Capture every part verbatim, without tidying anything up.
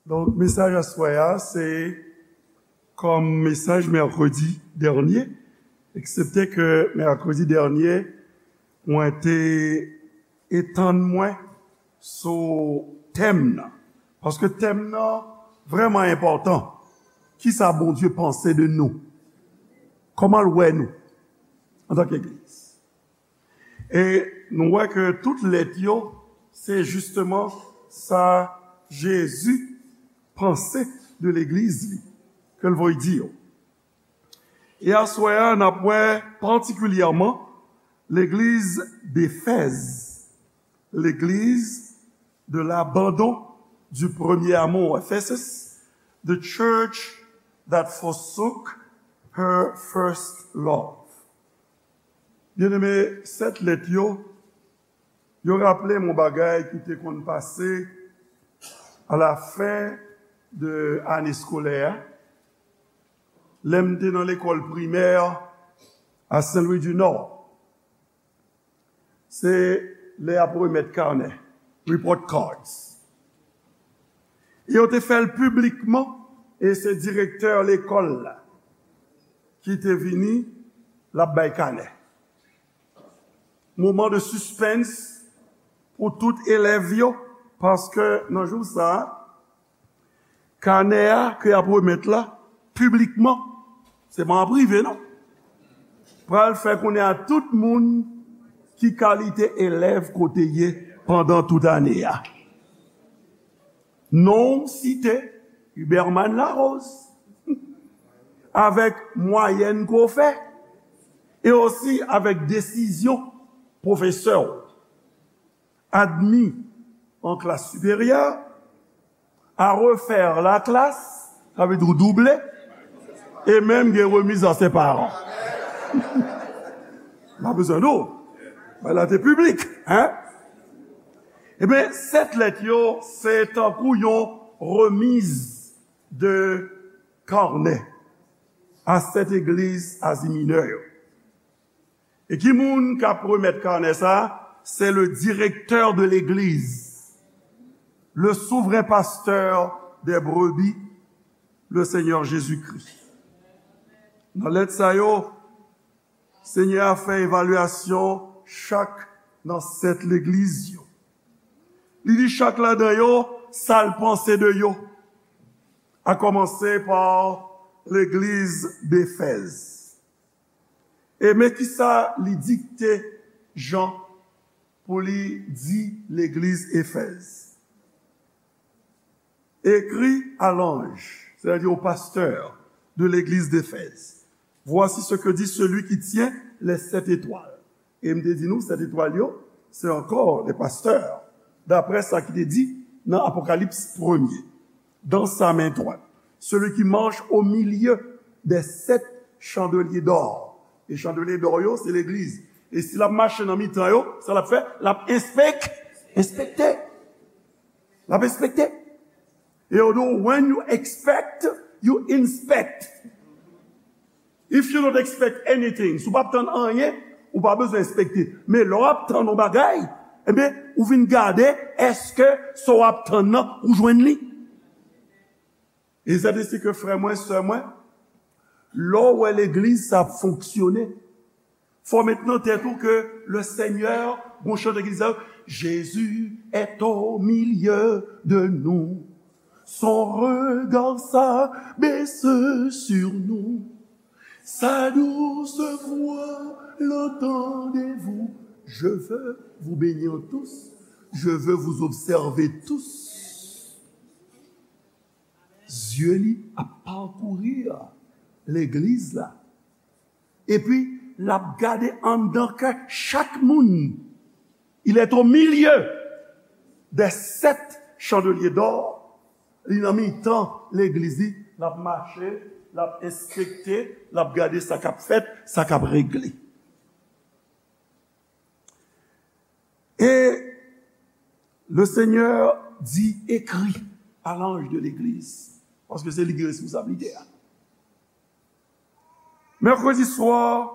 Donk, mesaj aswè a, se kòm mesaj mèkredi dènye, eksepte ke mèkredi dènye, mwen te etann mwen sou tèm nan. Paske tèm nan vrèman enpòtan. Kisa Bondye panse de nou? Kòman l wè nou antanke legliz? E nou wè ke tout lèt yo, se jisteman sa Jezi panse de legliz li, ke l voye di yo. E aswè a, n ap wè patikilyèman legliz Defèz, legliz de l'abandon du premier amour, Ephesus, the church that forsook her first love. Byeneme, sèt lèt yo, yo raple m yon bagay ki te konn pase a la fen de ane eskolè a, lè m te nan lekòl primè a Saint-Louis du Nord. Se lè y ap remèt kanè, report cards. E yo te fè l piblikman, e se direktè lekòl la ki te vini, l ap bay kanè. Moman de sispens pou tout elèv yo, paske nan jou sa a, kanè a ke y ap remèt la, piblikman, se pa an prive, non, pral fè konnen a tout moun ki kalite elèv ke w te ye pandan tout ane a. Non w site, Huberman Larose, avèk mwayèn ke w fè, e osi avèk desizyon pwofesè w. Admis en classe supérieure, à refaire la classe, sa vle di w double, e menm gen remiz a se paran. M pa bezwen di w, bagay la te piblik, hein? Ebyen, sèt lèt yo, se tankou yon remiz de kanè a sèt egliz Azi Minè yo. E ki moun k ap remèt kanè sa a? C'est le directeur de l'église, le souverain pasteur des brebis, le Seigneur Jésus-Christ. Nan lèt sa yo, Senyè a fè evalyasyon chak nan sèt legliz yo. Li di chak ladan yo sa l panse de yo, a kòmanse pa legliz Defèz. E men kisa li dikte Jan pou li di legliz Efèz. Écris à l'ange, c'est-à-dire au pasteur de l'église d'Éphèse, voici ce que dit celui qui tient les sept étoiles. E m te di nou, sèt etwal yo, se ankò les pasteurs, daprè sa ki te di nan Apokalips premye. Dans sa main droite, celui qui marche au milieu des sept chandeliers d'or. E chandeliers d'or yo, se legliz. E si l ap mache nan mitan yo, sa l ap fè? L ap enspek-, enspekte. L ap enspekte. E yo di w, when you expect, you inspect. If you don't expect anything, si w p ap tann anyen, ou pa bezwen enspekte. Men lè w ap tann yon bagay, ebyen, ou vin gade, èske sa w ap tann nan, ou jwenn li? E sèt isi ke frè mwen, sè mwen, lè w wè legliz sa ap fonksyone, fò w met nan tèt ou ke le Seigneur, gon chante ki di sa, Jésus est au milieu de nous, son regard s'abaisse sur nous, sa douce voix, l'entendez-vous, je veux vous bénir tous, je veux vous observer tous. Zye li ap pakouri legliz la. Epi, l ap gade anndan kè chak moun. Il est au milieu des sept chandeliers d'or. Li nan mitan legliz li, l ap mache, l ap enspekte, l ap gade sa k ap fèt, sa k ap regle. Et le Seigneur dit, écris à l'ange de l'église, paske se li ki gen responsablite a. Mèkredi swa,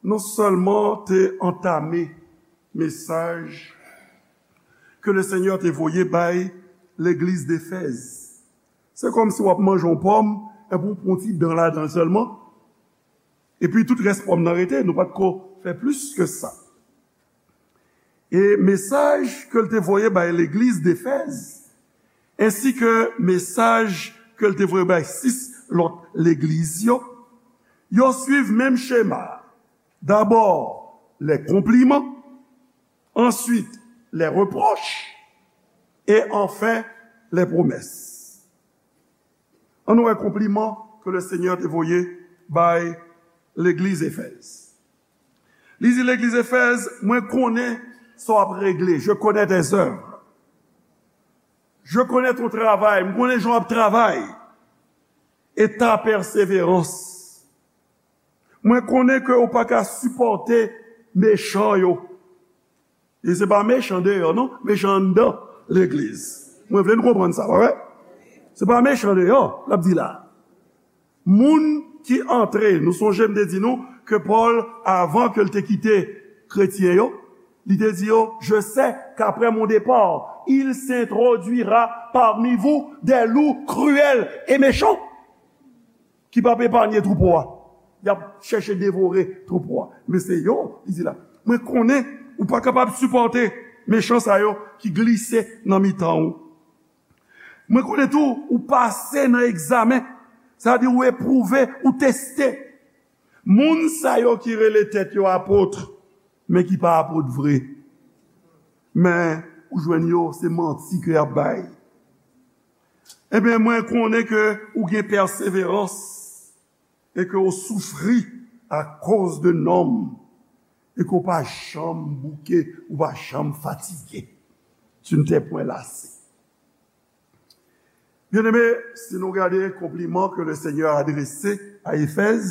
nou sèlman te antame mesaj ke le Seigneur te voye bay legliz Defèz. Se kòmsi w ap manje yon pòm, epi w pran yon ti dan ladan l sèlman, epi tout rès pòm nan rete, nou pa t ko fè plis ke sa. E mesaj ke l te voye bay legliz Efèz, ensi ke mesaj ke l te voye bay sis lòt legliz yo, yo swiv menm chema a. Dabò, lè konpliman, answit, lè repwòch, e anfen, lè pwomès. Ann nou wè konpliman ke le Senyè te voye bay legliz Efèz. Li di legliz Efèz, mwen konnen sa w ap regle, je connais tes œuvres. Je connais ton travail, mwen konnen jan w ap travay. E ta pèseverans. Mwen konnen ke ou pa ka sipòte mechan yo. E se pa mechan deyò, non, mechan anndan legliz. Mwen vle n konprann sa, pa vre? Se pa mechan deyò, l ap di la. Moun ki antre, nou sonje m te di nou ke Pòl, avan ke l te kite kretyen yo, li te di yo, je sais qu'après mon départ, il s'introduira parmi vous des loups cruels et méchants. Ki p ap epanye twoupo a. Y ap chèche devore twoupo a. Men se yo, li di la, mwen konnen ou pa kapab sipòte mechan sa yo ki glise nan mitan ou. Mwen konnen tou, ou pase nan egzamen, sa di ou epwouve, ou teste. Moun sa yo ki rele tèt yo apot, men ki pa apot vre. Men, ou jwenn yo, se manti ke y ap bay. Ebyen, mwen konnen ke ou gen pèseverans e ke ou soufri akoz de non m, e ke ou pa janm bouke, ou pa janm fatige. Tu ne t'es point lassé. Byeneme, si nou gade konpliman ke le Senyè adrese a Efèz,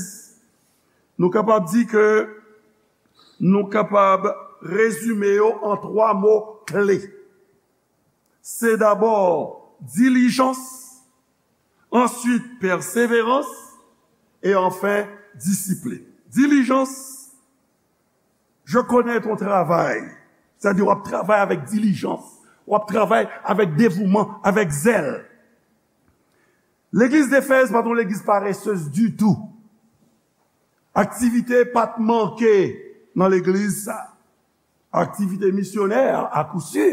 nou kapab di ke nou kapab rezime yo an twa mo kle. Se dabò dilijans, answit pèseverans, e anfen disiplin. Dilijans, je connais ton travail. Sa di w ap travay avèk dilijans, w ap travay avèk devouman, avèk zèl. Legliz Efèz pa t yon legliz paresez ditou. Aktivite pa t manke nan legliz sa. Aktivite misyonè, a kou si.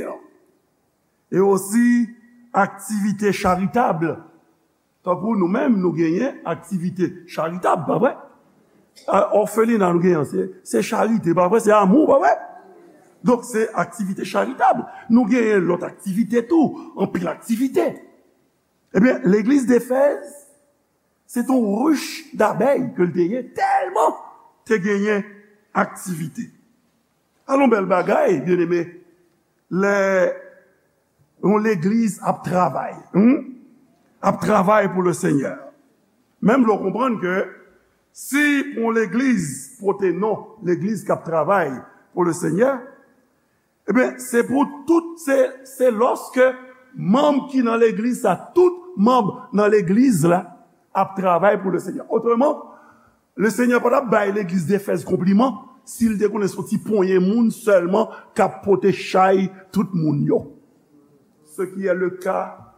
E osi aktivite charitab. Tankou nou menm, nou genyen aktivite charitab, pa vre? A, òfelina nou genyen, se, se charite, pa vre? Se amou, pa vre? Donk, se aktivite charitab. Nou genyen lòt aktivite tou, anpil aktivite. Ebyen, legliz Efèz, se t on rich dabèy ke l te ye, tèlman te genyen aktivite. Alon bèl bagay, byeneme, lè yon legliz ap travay, hmm? Ap travay pou le Senyè. Menm lè w konprann ke si pou yon legliz pote non legliz k ap travay pou le Senyè, ebyen, se pou tout, se, se lòske manm ki nan legliz sa, tout manm nan legliz la ap travay pou le Senyè. Otreman, le Senyè pa t ap bay legliz Efèz konpliman si l te konnen se yon ti ponyen moun sèlman k ap pote chay tout moun yo. Ce qui est le cas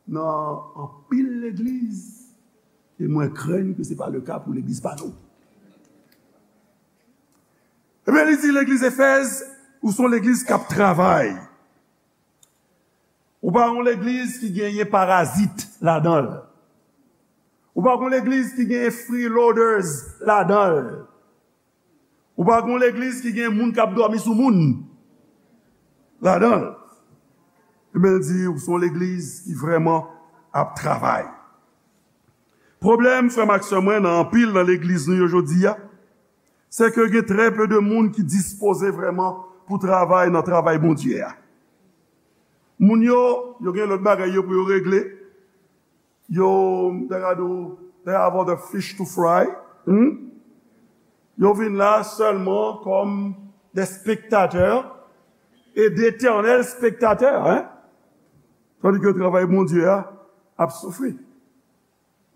nan anpil legliz, e mwen krenn ke se pa le ka pou legliz pa nou. Ebyen, li di legliz Efèz, ou se yon legliz k ap travay. Ou pa yon legliz ki genyen parazit ladan l. Ou pa yon legliz ki genyen freeloaders ladan l. Ou pa yon legliz ki gen moun k ap dòmi sou moun ladan l. Ebyen, l di, ou se yon legliz ki vrèman ap travay. Pwoblèm, frè m ak sè mwen, nan anpil nan legliz nou yo jodi a, se ke gen trè pe de moun ki dispoze vrèman pou travay nan travay Bondye a. Moun yo, yo gen lòt bagay yo pou yo regle. Yo, m ta ka di w, they have other fish to fry. Hmm? Yo vin la sèlman kòm de spektatè e detènèl spektatè, hein? Tandis que travay Bondye a ap soufri.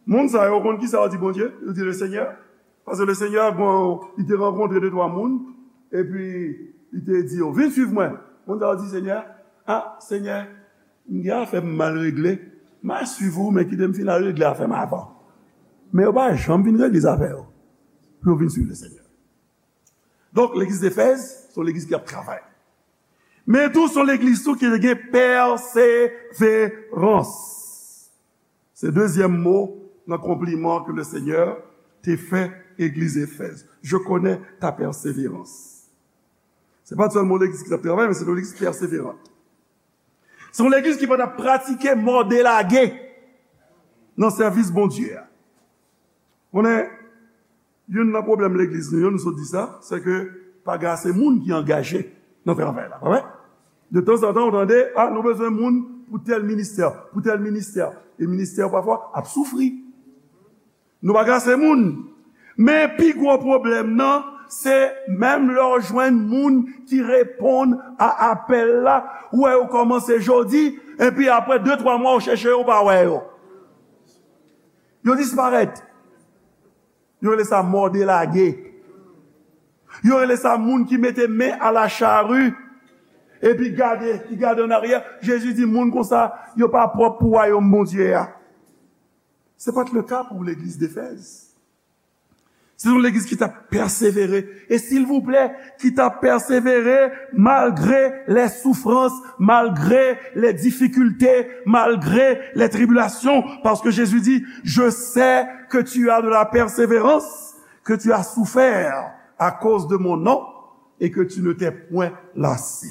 Moun sa yo konn kisa yo di Bondye? Yo di le Senyè. Paske le Senyè, bon, li te rankontre de twa moun, epi li te di yo, vin swiv mwen. Moun sa yo di Senyè, a, Senyè, m gen afè m mal regle. M a swiv ou, men kite m fin al regle afè m avan. Men yo pa janm vin regle zafè yo pou yo vin swiv Lesenyè. Donk, legliz Efèz, se yon legliz ki ap travay. Men tou, se yon legliz tou ki te gen pèseverans. Se dezyèm mo nan konpliman ke Lesenyè te fè legliz Efèz. Je connais ta persévérance. Se pa t sèlman yon legliz ki t ap travay, men se yon legliz pèseveran. Se yon legliz ki pa t ap pratike mòde lage nan sèvis Bondye a. Konnen, youn nan pwoblèm legliz nou yo, nou sot di sa, se ke pa gen ase moun ki angaje nan travay la, pa vre? De tanzantan, ou tande, a, nou bezwen moun pou tèl ministè, pou tèl ministè. E ministè yo pafwa ap soufri. Nou pa gen ase moun. Men pi gwo pwoblèm nan, se menm lè w jwenn moun ki reponn a apèl la, ou wè yo kòmanse jodi, epi apre de, twa mwa, ou chèche yo, ou pa wè yo. Yo disparèt. Yo rele sa mòde lage. Yo rele sa moun ki mete men a la chari, epi gade, ki gade an aryè. Jezi di moun konsa, yo pa pwòp pou wayòm Bondye a. Se pa t le ka pou legliz Efèz. Se yon legliz ki t ap pèsevere. E silvouplè, ki t ap pèsevere malgre les souffrances, malgre les difficultés, malgré les tribulations. Parce que Jésus dit, je sais que tu as de la persévérance, que tu as souffert à cause de mon nom et que tu ne t'es point lassé.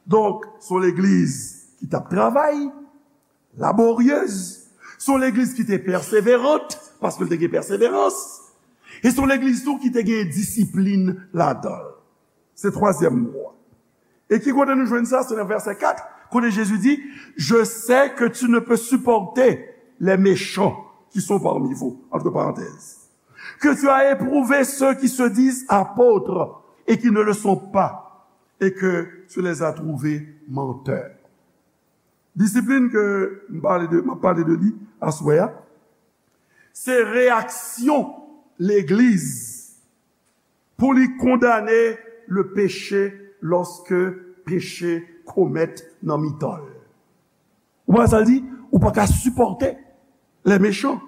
Donk, se yon legliz ki t ap travay, laboryez. Se yon legliz ki te pèseverant, paske l te gen pèseverans. E se yon legliz tou ki te gen disiplin ladan l. Se twazyèm mo a. E ki kote nou jwenn sa? Se nan vèsè kat, kote Jezi di, je sais que tu ne peux supporter les méchants qui sont parmi vous, entre parenthèses, que tu as éprouvé ceux qui se disent apôtres et qui ne le sont pas, et que tu les as trouvés menteurs. Disiplin ke m pale de, m ap pale de li aswè a, se reyaksyon legliz pou li kondane le péché lorsque péché komèt nan mitan l. Ou pa sa l di? Ou pa ka sipòte les méchants.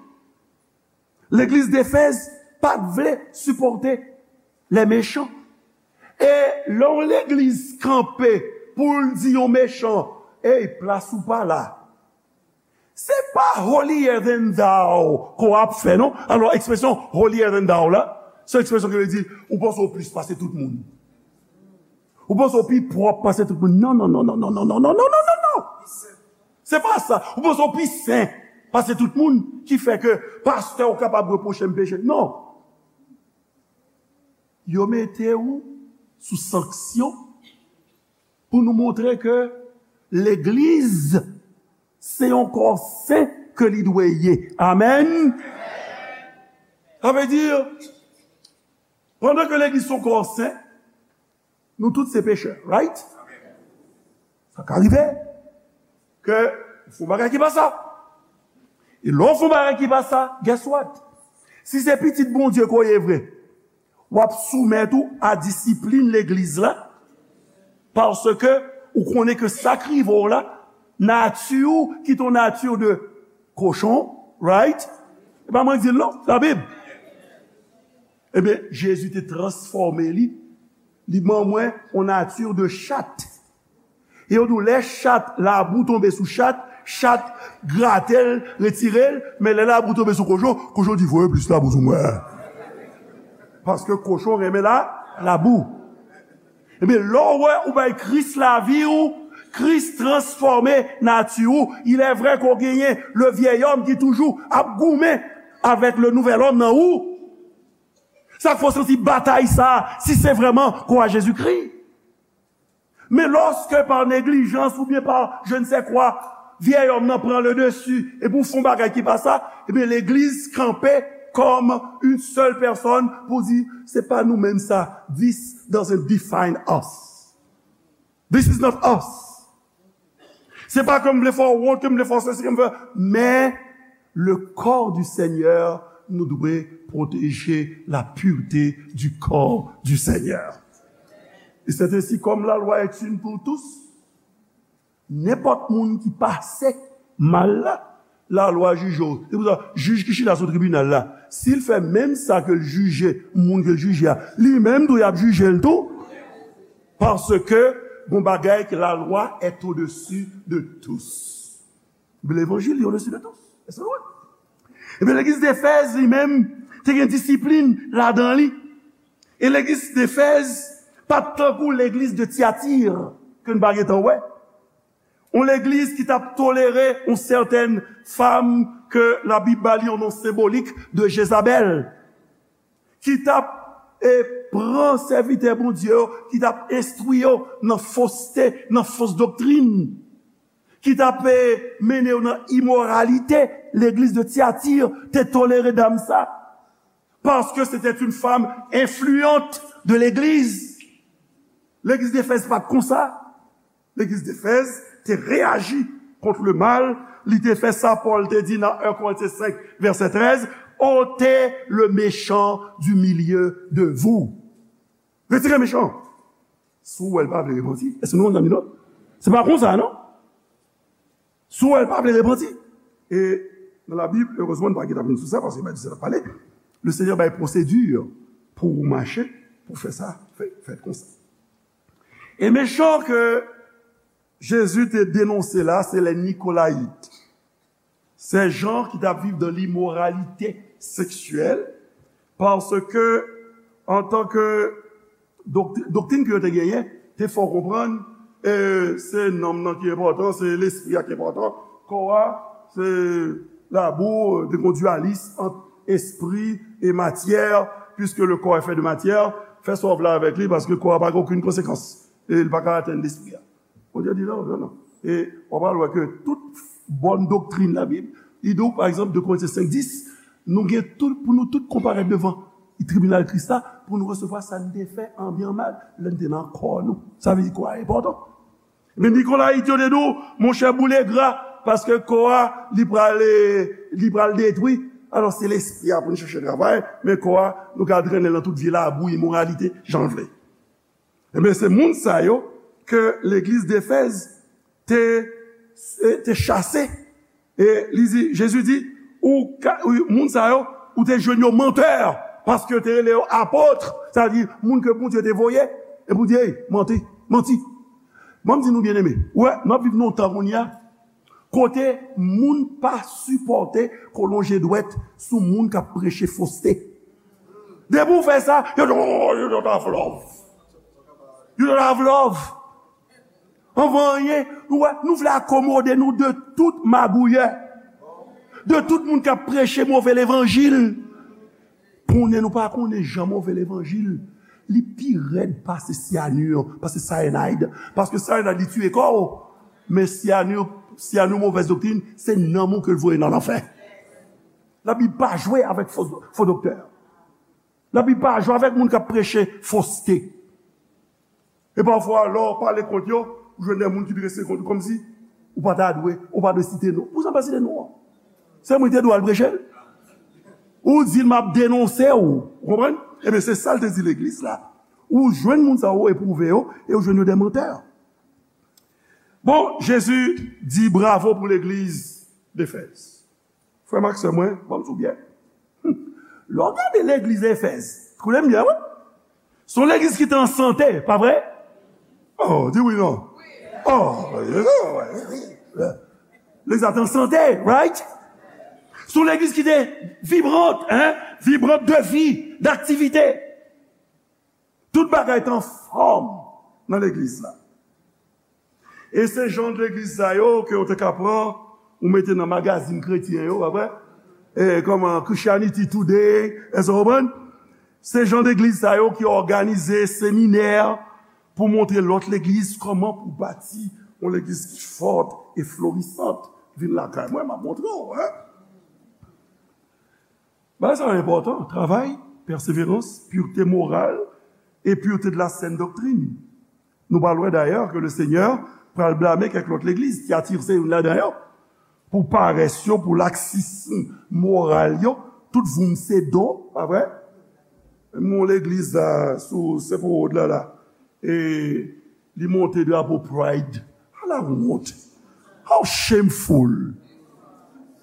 Legliz Defèz pa t vle sipòte les méchants. E lè yon legliz kanpe pou l di yon mechan, ey, plas ou pa la. Se pa holier than thou ke w ap fè, non. Alò, ekspresyon holier than thou la, se ekspresyon ki vle di, ou panse w plis pase tout moun. Ou panse w pi pwòp pase tout moun. Non, non, non, non. Se pa sa. Ou panse w pi sen pase tout moun, ki fè ke pastè w kapab repwoche m peche. Non. Yo mete w sou sanksyon pou nou montre ke legliz se yon kò sen ke li dwe ye. Amèn. Sa vle di, pandan ke legliz se yon kò sen, nou tout se pechè, right? Sa ka rive ke ou fè yon bagay ki pa sa. E lè w fè yon bagay ki pa sa, guess what? Si se pitit Bondye ke w ye vre, w ap soumèt ou a disiplin legliz la, paske ou konnen ke sa k rive w la, nati w ki te yon nati de kochon, right? E pa mwen k di l non, Labib. Ebyen, Jezi te transfòme li, li ban mwen yon nati de chat. E yo di w, lè chat, labou tonbe sou chat, chat grate l, retire l, men lè labou tonbe sou kochon, kochon di, voye plis labou sou mwen. Paske kochon renmen la, labou. Ebyen, lè w wè ou bay Kris lavi w, Kris transfòme nati w. Il est vrai ke w genyen le vieil homme ki toujou ap goumen avèk le nouvel homme nan ou. Sa k fè w santi batay sa a, si se vrèman kò a Jezikri. Men lòske pa neglijans oubyen pa je ne sais quoi, vyèy òm nan pran le dessus, epi w fè yon bagay ki pa sa, ebyen legliz kanpe kòm une seule personne pou di, se pa nou menm sa, this doesn't define us. This is not us. Se pa ke m vle fè w wont, ke m vle fè w sesi, ke m vle, men le corps du Seigneur, nou dwe pwoteje la pureté du corps du Seigneur. Et c'est ainsi, comme la loi est une pour tous, nenpòt moun ki pase mal la, lalwa jije w. Se pou sa, jij ki chita sou tribinal la, si l fè menm sa ke l jije moun ke l jije a, li menm tou y ap jije l tou. Paske gon bagay ke la loi est au-dessus de tous. Levanjil li au-dessus de tous. Èske nou wè? Ebyen, legliz Efèz, li menm, te gen disiplin ladan li. E legliz Efèz pa t tankou legliz de Tyatir, ke n pa gentan wè. Yon legliz ki t ap tolere yon sètèn fanm ke Labib ba li yon non senbolik de Jezabèl, ki t ap, e, pran sèvitè Bondye yo, ki t ap enstwi yo nan foste, nan fos doktrin, ki t ap, e, mennen yo nan imoralite. Legliz de Tyatir te tolere dam sa, paske se te yon fanm enfliyant de legliz. Legliz Efèz pa t konsa. Legliz Efèz te reyaji kont le mal, li te fè sa Pòl te di nan en Korentyen senk, vèsè trèz, ôtez le méchant du milieu de vous. Retire mechan. Si w wè l pa vle repanti, èske nou konn sa m di non? Se pa konsa, non? Si w wè l pa vle repanti. E nan Labib, erezman, nou pa gentan vin sou sa, paske Bib di sa n ap pale. Le Senyè bay pwosedi pou ou mache, pou fè sa, fè, fè konsa. E mechan ke Jezi te denonse la, se lè Nikolayit. Se jan ki t ap viv dan limoralite seksyèl, paske, antanke doktri-, doktrin ke yo te genyen, te fè w konprann, e, se nanm nan ki enpòtan, se lespri a ki enpòtan, kò a, se labou, te gon dyalis ant espri e matyè, puisque le corps est fait de matière, fè sa w vle avèk li, paske kò a pa gen okenn konsekans, e li pa ka atenn lespri a. Bondye di non, non, non. E w ap al wè ke tout bòn doktrin Labib, li di w, pa egzanp, de Korentyen senk dis, nou gen tout, pou nou tout konparèt devan tribinal Kris la, pou nou resevwa sa n te fè an byen an mal, lè n te nan kò nou. Sa vle di kò a enpòtan. Men Nikolayit yo te di w, monchè, boule gra, paske kò a, li pral, li pral detwi. Alò, se lespri a pou n chèche travay, men kò a, nou ka trennen l nan tout vye labou, imoralite, jan l vle. Ebyen, se moun sa yo ke legliz Efèz te, te chase. E li di, Jezi di, ou ka, ou, moun sa yo, ou te jwenn yo mantè, paske yo te rele yo apot, sa vle di moun ke Bondye te voye, e pou di, ey, manti, manti. Ban m di nou, byeneme, ou wè, n ap viv nan yon tan kounye a, kote moun pa sipòte kolonje dwèt sou moun k ap preche foste. Depi w fè sa, yo di, oh, you don't have love. You don't have love. Anvan anyen, nou wè, nou vle akomode nou de tout magouyè, de tout moun k ap preche move levanjil. Konnen nou pa konnen jan move levanjil, li pi rèd pase cyanure, pase cyanide. Paske cyanide, li tiye kò w. Men cyanure, cyanure, movèz doktrin, se nanm ou ke l voye nan lanfè. Labib pa jwe avèk fo, fo doktè. Labib pa jwe avèk moun k ap preche foste. E pafwa, lè w pale kont yo, ou jwenn de moun ki drese kont ou kòmsi ou pa ta dwe, ou pa dwe site non. Pousa w pa site non an? Se mwen ki te dwe al preche l? Ou di l, m ap denonse w. Ou konprann? Ebyen, se sa l te di legliz la. Ou jwenn moun sa yo, ou epwouve yo, e ou jwenn yo de mantè. Bon, Jezi di bravo pou legliz Efèz. Frè m ak sè mwen, ban m di w byen. Lè w gade legliz Efèz, koute m byen, wi. Se yon legliz ki te an sante, pa vre? Oh, di wi non. Oh, legliz la te an sante, right? Se yon legliz ki te vibrant, hein? Vibrant de vi, d'aktivite. Tout bagay te anfòm nan legliz la. E se jan legliz sa yo ke yo te ka pran, ou mete nan magazin kretyen yo, pa vre? E, kòman, Christianity Today, èske w konprann? Se jan legliz sa yo ki òganize seminè pou montre lòt legliz kòman pou bati yon legliz ki fòt e florisant. Vin lakay mwen, m ap montre w, hein? Bagay sa yo enpòtan, travay, pèseverans, pureté morale et pureté de la saine doctrine. Nou pral wè dayè ke le Senyè pral blame kèk lòt legliz, Tyatir se youn ladan yo, pou parès yo, pou laksism moral yo, tout voum se do, pa vre? Menm yon legliz la, sou Saint Paul Road la, la, e li monte drapo Pride. Ala wont! How shameful!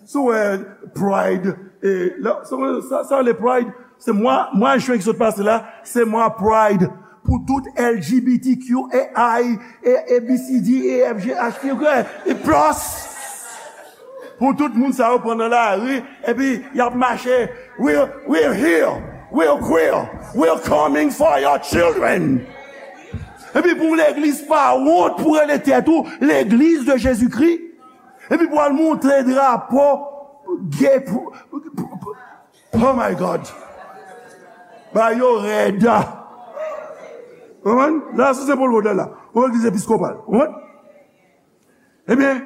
Si w wè Pride, e, la, sa, sa, sa le Pride, se mwa, mwa jen ki sot pase la, se mwa Pride pou tout L G B T Q A I, e, A B C D, E F G H, e, e plus. Pou tout moun sa yo pran nan lari, epi y ap mache, "We're, we're here, we're queer, we're coming for your children." Epi pou legliz pa wont pou rele tèt ou legliz de Jezikri. Epi pou al montre drapo gay pou, pou, pou, pou, oh my God. Ba yo rèd. Konprann? La, sou Sen Pòl Wòd la, la. Yon legliz episkopal. Konprann? Ebyen,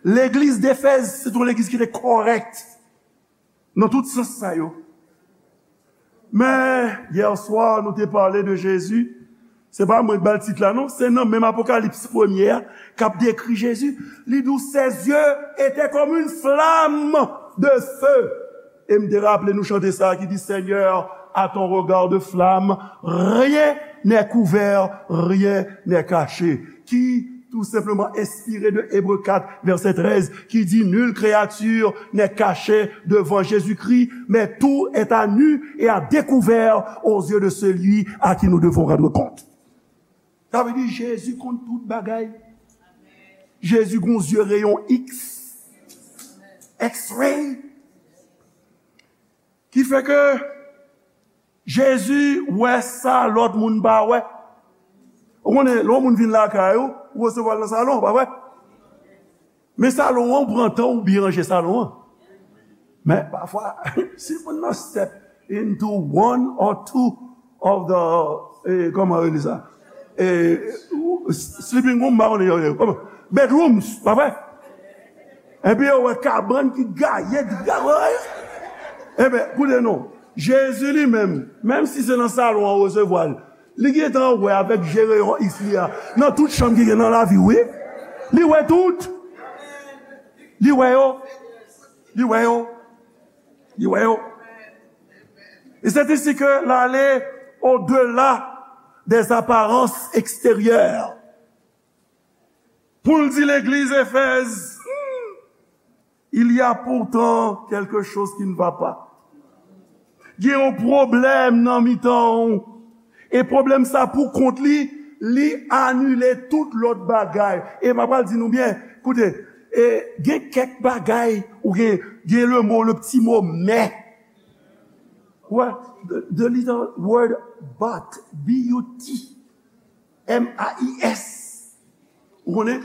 legliz Defèz, se yon legliz ki te kòrèk nan tout sans sa yo. Men, yè swa, nou te pale de Jezi. Se pa mwen k ba l tit la, non. Se nan menm Apokalips premye a, k ap dekri Jezi. Li di w, "Ses yeux étaient comme une flamme de feu." E m te raple nou chante sa ki di, "Seigneur, à ton regard de flamme, rien n'est couvert, rien n'est caché." Ki tou senpleman enspire de Ebre kat, vèsè trèz, ki di, "Nulle créature n'est cachée devant Jésus-Christ, mais tout est à nu et à découvert aux yeux de celui à qui nous devons rendre compte." Sa vle di Jezi konn tout bagay. Jezi gon zye reyon X, X-ray. Ki fè ke Jezi wè sa lòt moun pa wè. Ou konnen, lè yon moun vin lakay ou, ou resevwa l nan salon, pa vre? Men salon an, ou pran tan ou byen ranje salon an. Men pafwa, si moun nan step into one or two of the, eh, kòman yo rele sa? Eh, sleeping room, m pa konnen yo rele, kòman? Bedrooms, pa vre? Epi yo wè kabann ki gaye, gaye. Ebyen, koute non. Jezi li menm, menm si se nan salon an ou resevwa l, li gentan wè avèk je reyon X li a, nan tout chanm ki gen nan lavi w, wi. Li wè tout. Li wè yo. Li wè yo. Li wè yo. Et c'est ici que l'aller au-delà des apparences extérieures. Pou l di legliz Efèz, il y a pourtant quelque chose qui ne va pas. Gen yon pwoblèm nan mitan w. E pwoblèm sa pou kont li, li anile tout lòt bagay. E m ap pral di nou byen, koute, e gen kèk bagay, ou gen, gen le mo, le ti mo, men. Wè, the, the little word but, B U T, M A I S. Ou konnen?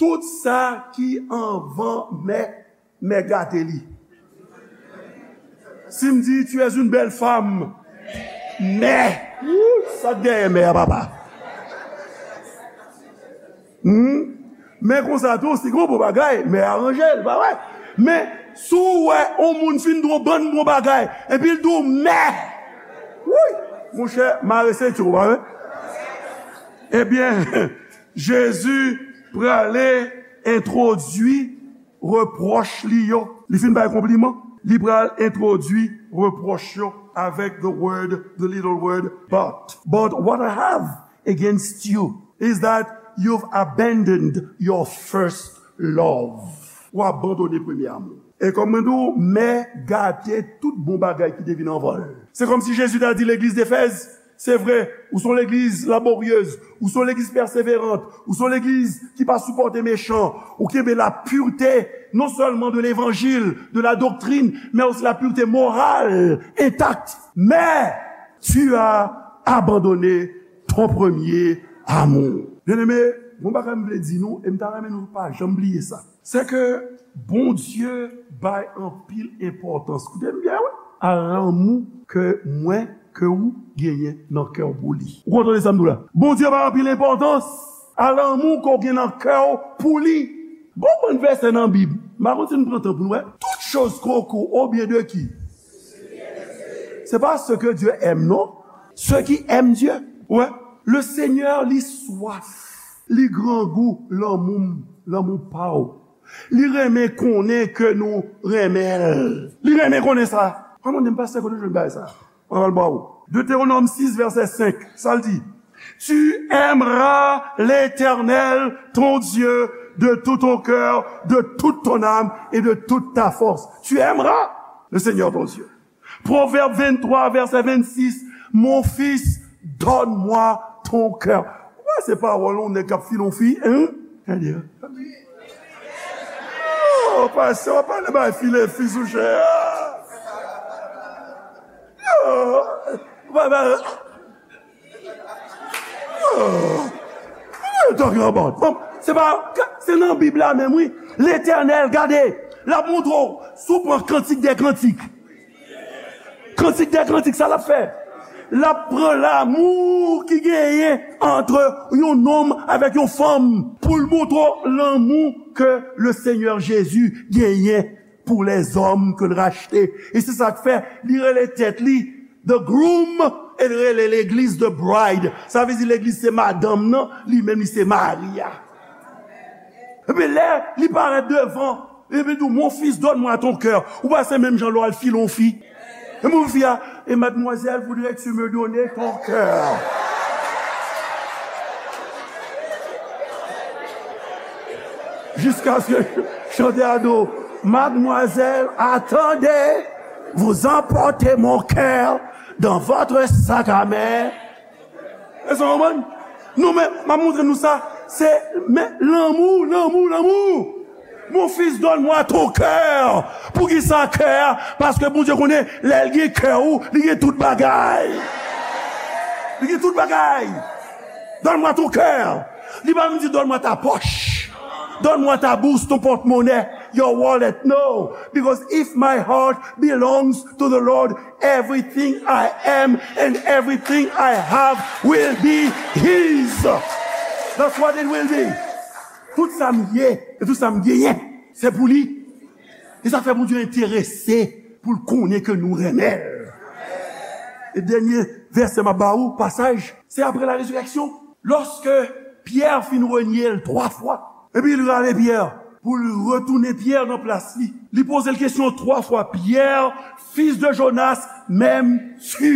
Tout sa ki anvan men, men gate li. Si m di, "Tu es une belle femme," men, wou, sa k dèyè men a, papa? Hmm? Men konsa tou, si gon bon bagay, men aranje l, pa vre? Men, si w wè yon moun fin di yon bann bon bagay, epi l di w men, wouy, monchè, mare senti w, pa vre? Ebyen, Jezi prale entwodui repwòch li yo. Li fin bay konpliman, li pral entwodui repwòch yo avèk the word, the little word, but. But what I have against you is that you've abandoned your first love. Ou abandone premye amou. E kòm mwen di w, men gate tout bon bagay ki te vin anvan l. Se kòmsi Jezi ta di legliz Defèz, se vre, ou se yon legliz laboryez, ou se yon legliz pèseverant, ou se yon legliz ki pa sipòte mechan, ou kenbe la pureté, non sèlman de levanjil, de la doctrine, mais aussi la pureté morale intacte. Mais tu as abandonné ton premier amour. Byeneme, yon bagay m vle di nou, e m ta renmen nou pa janm bliye sa. Se ke Bondye bay anpil enpòtans, koute m byen, wi, a lanmou ke mwen, ke ou genyen nan kè w pou li. Ou konn tande sa m di w la? Bondye bay anpil enpòtans a lanmou ke w gen nan kè w pou li. Gon bann vèsè nan Bib, m pa konn si n pran tan pou nou wè. Toutes choses concourent au bien de qui? C'est pas ce que Dieu aime, non. Ceux qui aiment Dieu. Wè, le Seigneur, li swaf, li grangou lanmou m, lanmou pa w. Li renmen konnen ke nou renmen l. Li renmen konnen sa. Mwen mande m, pastè, kote w jwenn bagay sa? Mwen pral ba w. Deutéronome six, verset cinq, sa l di? Tu aimeras l'Éternel, ton Dieu, de tout ton cœur, de toute ton âme et de toute ta force. Tu aimeras le Seigneur ton Dieu. Proverbe vingt-trois, verset vingt-six, mon fils, donne-moi ton cœur. Ou wè se pawòl yon nèg k ap file yon fi, hein? Tande. Oh, pastè, w ap pale bay file fi sou chè a. Oh, w ap pale, oh, what are you talking about? Bon, se pa, se nan Bib la menm, wi. Letènèl, gade, l ap montre w, si w pran Kantik dè Kantik. Kantik dè Kantik, sa l ap fè? L ap pran lanmou ki genyen ant yon nonm avèk yon fanm pou l montre w lanmou ke le Seigneur Jésus genyen pour les hommes que l rachte. E se sa k fè li rele tèt li the groom e l rele legliz the bride. Sa vle di legliz se madanm nan, li menm li se mari a. Epi lè li parèt devan, epi di w, mon fils, donne-moi ton cœur. Ou pa se menm jan lè w al file yon fi. E mon fi a, et mademoiselle voudrait que tu me donnes ton cœur. Jusqu'à ce que chante à dos, mademoiselle, attendez, vous emportez mon cœur dans votre sac à main. Èske w konprann? Nou menm, m ap montre nou sa. Se, men, lanmou, lanmou, lanmou. Mon fils, donne-moi ton cœur. Poukisa kè a? Paske Bondye konnen, lè l gen kè ou, li gen tout bagay. Li gen tout bagay. Donne-moi ton cœur. Li pa vin di, donne-moi ta poche. Donne-moi ta bourse, ton porte-monnaie, your wallet. No. Because if my heart belongs to the Lord, everything I am and everything I have will be his. That's what it will be. Tout sa m ye e tout sa m genyen, se pou li. E sa fè Bondye enterese pou l konnen ke nou renmen l. E dènye vèsè m ap ba ou, pasaj, se apre la rezirèksyon. Lòske Pyè fin renye l twa fwa, epi l rale Pyè pou l retounen Pyè nan plas li. Li poze l kesyon twa fwa, Pierre, fils de Jonas, m'aimes-tu?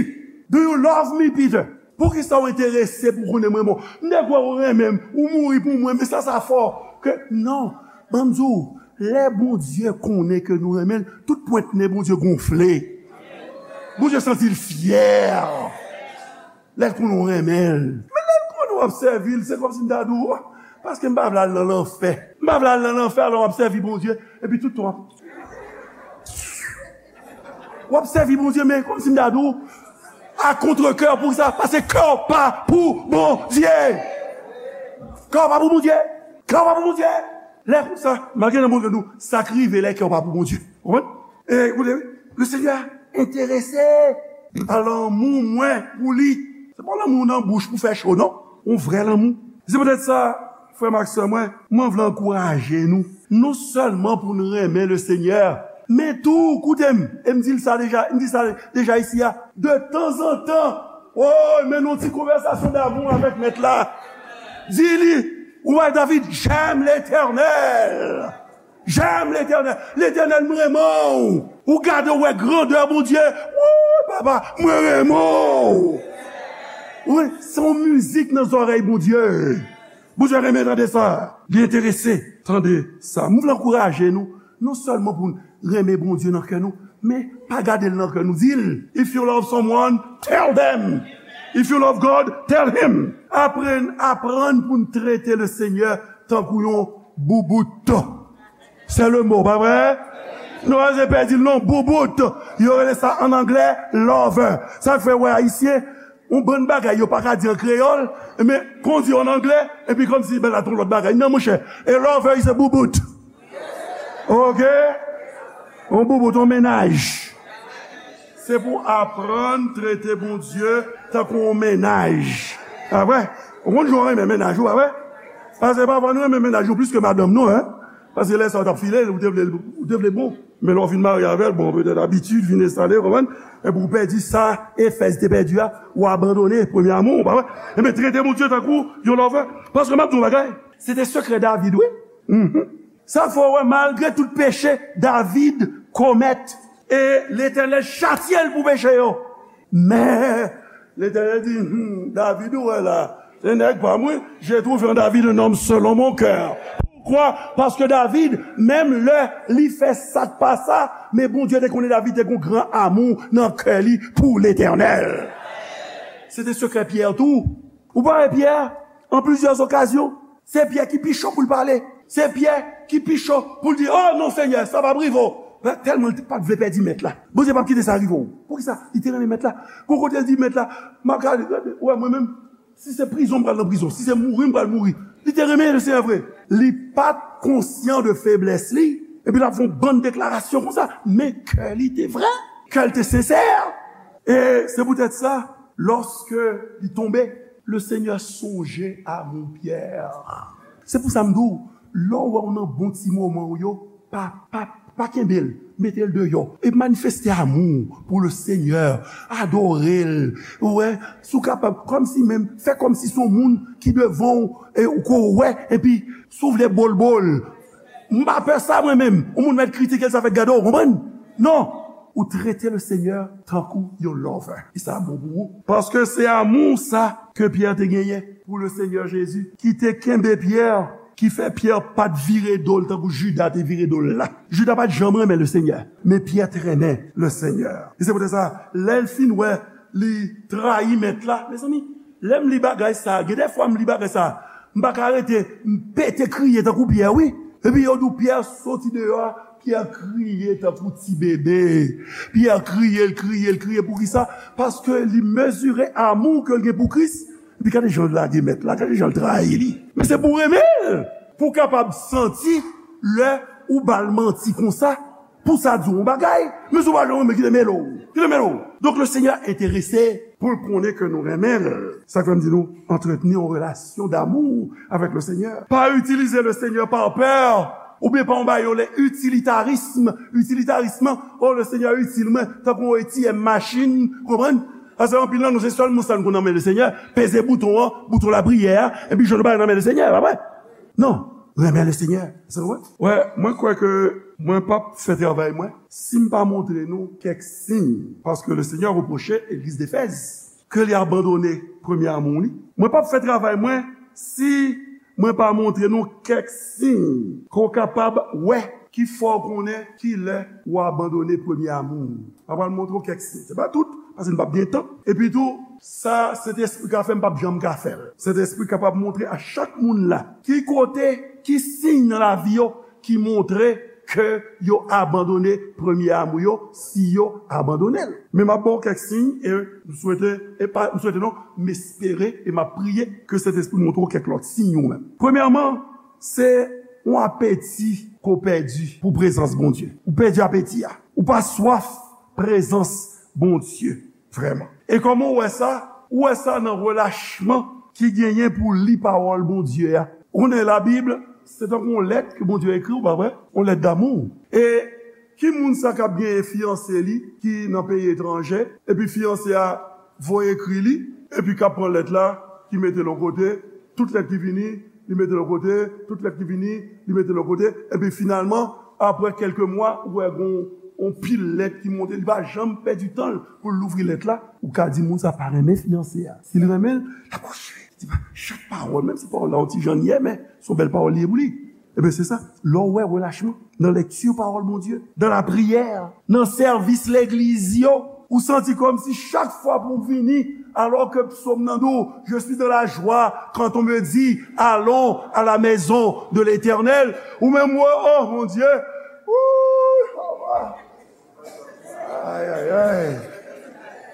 Do you love me, Peter? Poukisa w enterese pou konnen mwen bon? M te kwè w renmen m, ou mouri pou mwen, men sa, sa fò ke, non, ban m di w, lè Bondye konnen ke nou renmen l, tout pwent nen Bondye gonfle. Bondye santi l fyè. Lè l konnen w renmen l. Men lè l konnen w ap sèvi l, se kòmsi m ta di w, paske m pa vle al nan lanfè. M pa vle al nan lanfè, alò w ap sèvi Bondye, epi tout tan w ap, w ap sèvi Bondye, men kòmsi m ta di w, a kontrekè, poukisa? Paske kè w pa pou Bondye. Kè w pa pou Bondye. Kè w pa pou Bondye. Lè konsa, malgre nan Bondye nou, sa k rive lè kè w pa pou Bondye. Ou konprann? E, koute, wi. Le Seigneur enterese pa lanmou mwen pou li. Se pa lanmou nan bouch pou fè cho, non. Yon vrè lanmou. Se poutèt sa, frè m ak sè mwen, mwen vle ankouraje nou. Non sèlman pou n renmen le Seigneur, men tou, koute m, e m di l sa deja, m di sa deja isi a, de tanzantan, o, mennen yon ti konvèsasyon damou avèk Mèt la. Di li, ou wè David, j'aime l'Éternel. J'aime l'Éternel. Letènèl, m renmen w. Ou gade, ou wè grandè Bondye. Wouy, papa, mwen renmen w. Wi, se yon mizik nan zòrèy Bondye. Bondye renmen tande sa. Li enterese tande sa. M vle ankouraje nou, non sèlman pou n renmen Bondye nan kè nou, men pa gade l nan kè nou. Di l, if you love someone, tell them. If you love God, tell him. Aprann, aprann pou n trete le Seigneur tankou yon boubout. Se le mo, pa vre? Nou pa bezwen pèdi l non, boubout. Yo rele sa an anglè lover. Sa k fè w wè Ayisyen, yon bann bagay yo pa ka di an kreyòl, men kon w di yo an anglè, epi kòmsi, ben, la, t on lòt bagay. Non, monchè, a lover is a boubout. Oke? Yon boubout, yon mennaj. Se pou aprann trete Bondye tankou yon mennaj. Pa vre? Ou konn jan w renmen mennaj ou, pa vre? Paske pafwa nou renmen mennaj nou plis ke madanm nou, en. Paske lè sa w t ap file l, ou te vle, ou te vle bon. Men lè w fin marye avè l, bon, petèt abitid vin enstale, konprann? Epi w pèdi sa Efèz te pèdi a, ou abandone premye amou w, pa vre? Enben, trete Bondye tankou yon lover. Paske m ap di w yon bagay, se te sekrè David, wi. Mhm. Sa fè w wè, malgre tout peche David komèt, e Letènèl chatye l pou peche yo. Men, Letènèl di, hmm, David ou wè la, se nèg pa m, wi. J'ai trouvé en David un homme selon mon cœur. Kwa? Paske David, menm lè li fè sa k pa sa, men Bondye te konnen David te gon gran amou nan kè li pou Letènèl. Se te sekrè Pyè tou. Ou pa wè Pyè, an plizyè okazyon, se Pyè ki pi cho pou l pale. Se Pyè ki pi cho pou l di, "Oh non, Senyè, sa p ap rive w." Tèlman li pa t vle pèdi Mèt la. Bondye p ap kite sa rive w. Poukisa? Li te renmen Mèt la. Gon kote l di, "Mèt la, m ap gade, gade, ou wè mwen menm, si se prizon, m pral nan prizon. Si se mouri, m pral mouri." Li te renmen Lesenyè vre. Li pa t konsyan de feblès li. Epi l ap fè yon bann deklarasyon konsa. Men kè li te vrè. Kè l te sensè. E se poutèt sa, lòske li tonbe, Lesenyè sonje a mon Pyè. Se pou sa m di w, lè w wè w nan bon ti moman w yo, pa, pa, pa kenbe l, mete l deyò. E manifeste amou w pou Lesenyè, adore l, ou wè, si w kapab, kòmsi menm, fè kòmsi se yon moun ki devan w, e, ou ko wè, epi si w vle bol bol. M pa pè sa mwen menm. Yon moun mèt kritike l, sa fèt gade w, konprann? Non! Ou trete Lesenyè tankou yon lover. E sa bon pou ou. Paske se amou sa ke Pyè te genyen pou Lesenyè Jezi, ki te kenbe Pyè, ki fè Pyè pa t vire do l tankou Jida te vire do l la. Jida pa t janm renmen Lesenyè, men Pyè t renmen Lesenyè. E se poutèt sa, lè l fin wè li trayi Mèt la, mezanmi, lè m li bagay sa, gen de fwa m li bagay sa, m pa ka rete, m pete kriye tankou Pyè, wi. Epi yo di w Pyè soti deyò a, Pyè kriye tankou ti bebe. Pyè kriye, l kriye, l kriye. Poukisa? Paske li mezire amou ke l gen pou Kris. Epi gade jan l lage Mèt la, gade jan l trayi li. Men se pou renmen l, pou w kapab santi lè ou ba l manti konsa, pou sa di w yon bagay. Men si w pa janm renmen, kite mele w. Kite mele w. Donk, Lesenyè enterese pou l konnen ke nou renmen l. Sa k fè m di nou, antretni yon relasyon damou avèk Lesenyè. Pa itilize Lesenyè pa pè, oubyen pa yon bagay yo rele itilitarism. Itilitarism, oh, Lesenyè itil mwen, tankou yon A T M machin, konprann? Paske anpil nan nou, se sèl moun sa nou konn nan men Lesenyè, peze bouton an, bouton lapriyè a, epi jwenn yon bagay nan men Lesenyè, pa vre? Non, renmen Lesenyè. Se vre? Wè, mwen kwè ke mwen p ap fè travay mwen si m pa montre nou kèk siy. Paske Lesenyè repwoche legliz Efèz ke li abandone premye amou li. Mwen p ap fè travay mwen si mwen pa montre nou kèk siy ke w kapab wè ki fè w konnen kilè w abandone premye amou w. M ap pral montre w kèk siy. Se pa tout, paske n p ap gen tan. Epi tou, sa Sentespri ka fè, m p ap janm ka fè l. Sentespri kapab montre a chak moun la ki kote, ki siy nan lavi yo ki montre ke yo abandone premye amou yo, si yo abandone l. Men m ap ba w kèk siy, e m swete, e pa, m swete non, m espere e m ap priye ke Sentespri montre w kèk lòt siy ou menm. Premyèman, se yon apeti ke w pèdi pou prezans Bondye. Ou pèdi apeti a. Ou pa swaf prezans Bondye. Vrèman. E kòman w wè sa? Ou wè sa nan relachman ki genyen pou w li pawòl Bondye a. Ou konnen Labib, se tankou yon lèt ke Bondye ekri w, pa vre? Yon lèt damou. E ki moun sa k ap genyen fiyanse li ki nan peyi etranje, epi fiyanse a voye ekri li, epi k ap pran lèt la, ki mete l yon kote, tout lèt ki vini, li mete l yon kote, tout lèt ki vini, li mete l yon kote, epi finalman, apre kèlke mwa, ou wè gon yon pil lèt ki monte, li pa janm pèdi tan l pou l louvri lèt la, ou ka di moun sa pa renmen fiyanse a. Si l renmen l, l ap kontinye. Li di pa, chak pawòl, menm si pawòl la yon ti jan l ye, men se yon bèl pawòl li ye pou li. Ebyen, se sa. Lè w wè relachman nan lekti pawòl Bondye, nan lapriyè, nan sèvis legliz yo, ou santi kòmsi chak fwa pou w vini, alò ke psòm nan di w, "Je suis dans la joie quand on me dit, allons à la maison de l'Éternel." Ou menm, w, oh, mon Dieu. Ouh, ay, ay, ay.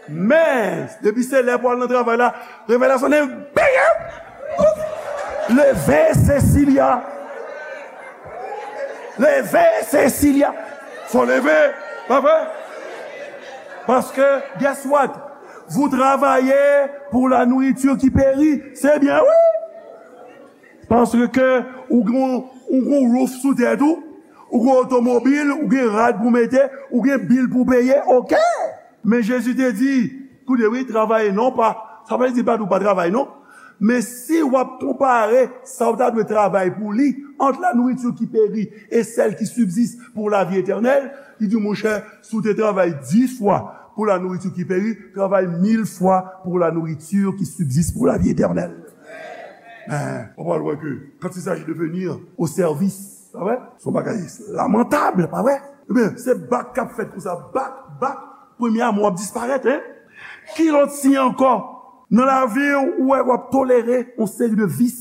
Men, depi se lè pou al nan travay la, revelasyon de bègè. Leve, Cecilia. Leve, Cecilia. Fò leve, pa vre? Paske, guess what? Vous travaillez pour la nourriture qui périt. Se byen, wi. Paske ou gon, ou gon roof sou tèt ou, ou gon otomobil, ou gen rad pou mete, ou gen bil pou peye, oke. Men Jezi te di, koute wi, travay non pa, sa pa vle di pa di w pa travay non. Men si w ap konpare sa w ta dwe travay pou li, entre la nourriture qui périt et celle qui subsiste pour la vie éternelle, li di, monchè, si w te travay dis fwa pour la nourriture qui périt, travay mil fwa pour la nourriture qui subsiste pour la vie éternelle. Men, w pral wè ke quand il s'agit de venir au service, pa vre? Se yon bagay lamantab, pa vre? Ebyen, se bak k ap fèt konsa, bak, bak, premye amou ap disparèt, en? Ki lòt siy ankò? Nan lavi w, ou wè w ap tolere yon seri de vis,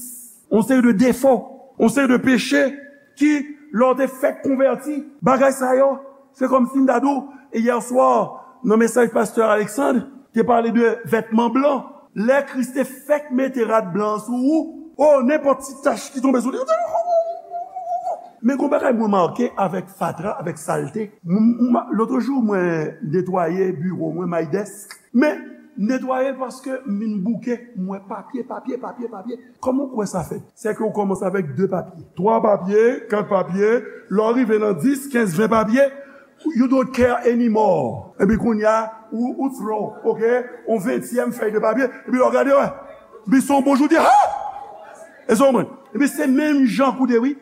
yon seri de defo, yon seri de peche ki, lè w te fèk konvèti, bagay sa yo, se kòmsi m ta di w, e yè swa, nan mesaj pastè Alexandre, te pale de vètman blan. Lè Kris te fèk mete rad blan an sou ou, o, nenpòt ti tach ki tonbe sou li, men gon bagay mwen make avèk fatra, avèk salte. M, m, lòt jou, mwen netwaye biwo mwen, my desk. Men, netwaye l paske m vin bouke, m wè papye, papye, papye, papye. Kòman w kwè sa fèt? Se ke w kòmanse avèk de papye, twa papye, kat papye, lè w rive nan dis, kenz, ven papye, you don't care anymore. Epi kounye a, ou, ou throw, ok, yon ventyèm fèy de papye, epi lè w gade, wè, epi se yon bon jou, w di, ha! E sa w konprann? Epi se menm jan koute, wi.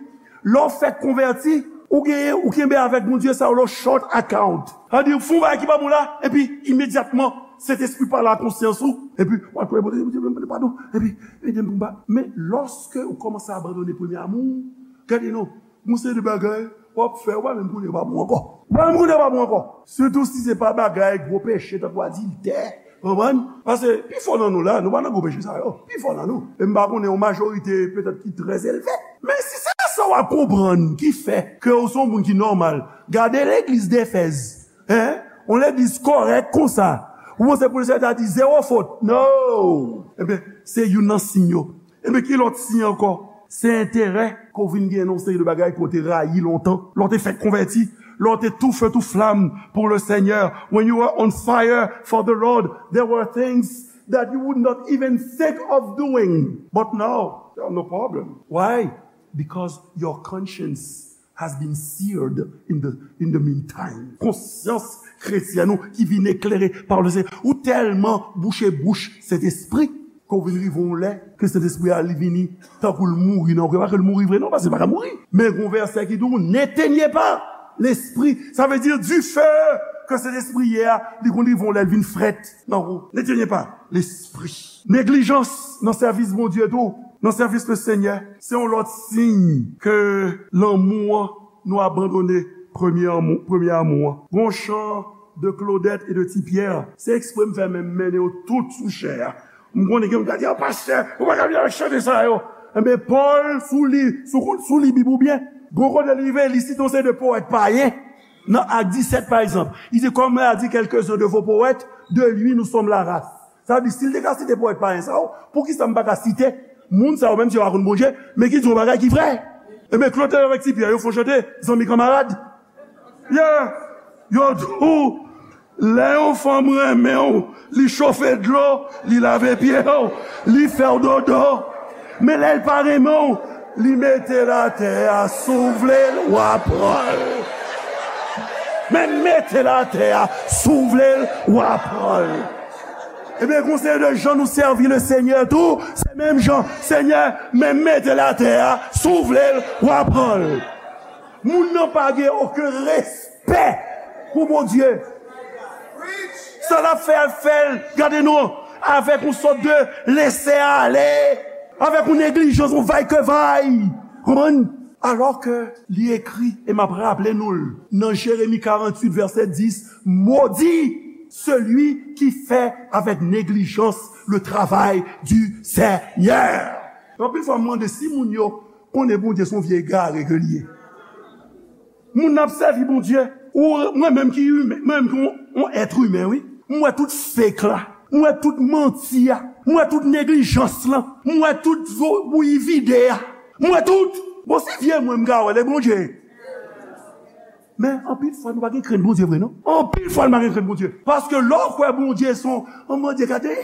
Lè w fèk konvèti, ou genyen, ou kenbe avèk Bondye sa yo, lo short account. Sa vle di, ou fè yon bagay ki pa bon la, epi imedyatman, Sentespri pale a konsyans ou, epi w ap priye, Bondye, Bondye, Bondye, padon, epi ede m pou m pa. Men, lòske ou kòmanse abandone premye amou, gade non, gon seri de bagay w ap fè, ou pa menm konnen yo pa bon ankò. Ou pa menm konnen yo pa bon ankò. Sitou si se pa bagay gwo peche, tankou adiltè, konprann? Paske pifò nan nou la, nou pa nan gwo peche sa yo. Pifò nan nou. E m pa konnen yon majorite petèt ki trè elve. Men si se sa w ap konprann ki fè ke w se yon moun ki nòmal, gade legliz Defèz, en? Yon legliz kòrèk konsa. Ou panse polisye ta di zewo fot? No! Ebyen, se youn nan siy yo. Ebyen, ki lòt siy ankò? Se enterè ke w vin gen nan yon seri de bagay ke w te rayi lontan. Lè w te fèk konvèti, lè w te tou feu tou flamme pour le Seigneur, when you were on fire for the Lord, there were things that you would not even think of doing. But now, there are no problem. Why? Because your conscience has been seared in the, in the meantime. Konsyans kretyèn ou ki vin eklere pa Lesenyè. Ou tèlman bouche bouch Sentespri, ke w vin rive yon lè, ke Sentespri a li vini, tankou l mouri nan ou. Pa ke l mouri vre non, paske l pa ka mouri. Men gon vèsè ki di w, n'éteignez pas l'esprit. Sa vle di, dife ke Sentespri ye a, li konn rive yon lè, l vin frèt nan ou. N'éteignez pas l'esprit. Neglijans nan sèvis Bondye tou, nan sèvis Lesenyè, se yon lòt siy ke lanmou an, nou abandone premye amou, premye amou an. Gon chan de Claudette et de Ti Pierre, se ekspre m fè men m mennen yo tout sou chè a. M konnen gen moun k ap di, "Ah, pastè, ou pa ka vin avèk chante sa yo." Enben, Pòl, sou li, sou, sou li Bib ou byen, gon kote li rive, li site yon seri de powèt payen. Nan Ak disèt, pa egzanp, li di, "Comme l'a dit quelques-uns de vos poètes, de lui nous sommes la race." Sa vle di, si l te ka site powèt payen sa yo, poukisa m pa ka site moun sa yo menm si yo pa konn Bondye, men ki di yon bagay ki vrè? Enben, Claudette avèk Ti Pierre, yo fè yon chante, zanmi kanmarad. Yeah! Yo di w, lè yon fanm renmen w, li chofe dlo, li lave pye w, li fè w dodo. Men lè l pa renmen w, li mete l atè a, si w vle l, w a pran l. Men mete l atè a, si w vle l, w a pran l. Ebyen, gon seri de jan nou sèvi Lesenyè tou, se menm jan, Senyè, men mete l atè a, si w vle l, w a pran l. Moun nan pa gen okenn respè pou Bondye. Sa l ap fè, l ap fè l, gade non, avèk yon sòt de lese ale, avèk yon neglijans, yon vaykevay. Konprann? Alò ke li ekri, e m ap raple nou l, nan Jeremi karanntuit, vèsè dis, "Maudit celui qui fait avec négligence le travail du Seigneur." Anpil fwa, m mande si moun yo konnen Bondye se yon vye egare ke li ye. Moun nan ap sèvi Bondye, ou, mwen menm ki imen, mwen menm ki yon, yon èt imen, wi. M wè tout fake la. M wè tout manti a. M wè tout neglijans lan. M wè tout zo bouyi vide a. M wè tout. Bon, si vye mwen m ka wè, lè Bondye. Men, anpil fwa, nou pa gen krent Bondye vre, non? Anpil fwa, nou pa gen krent Bondye. Paske lè w kwè Bondye se yon, yon Bondye gade.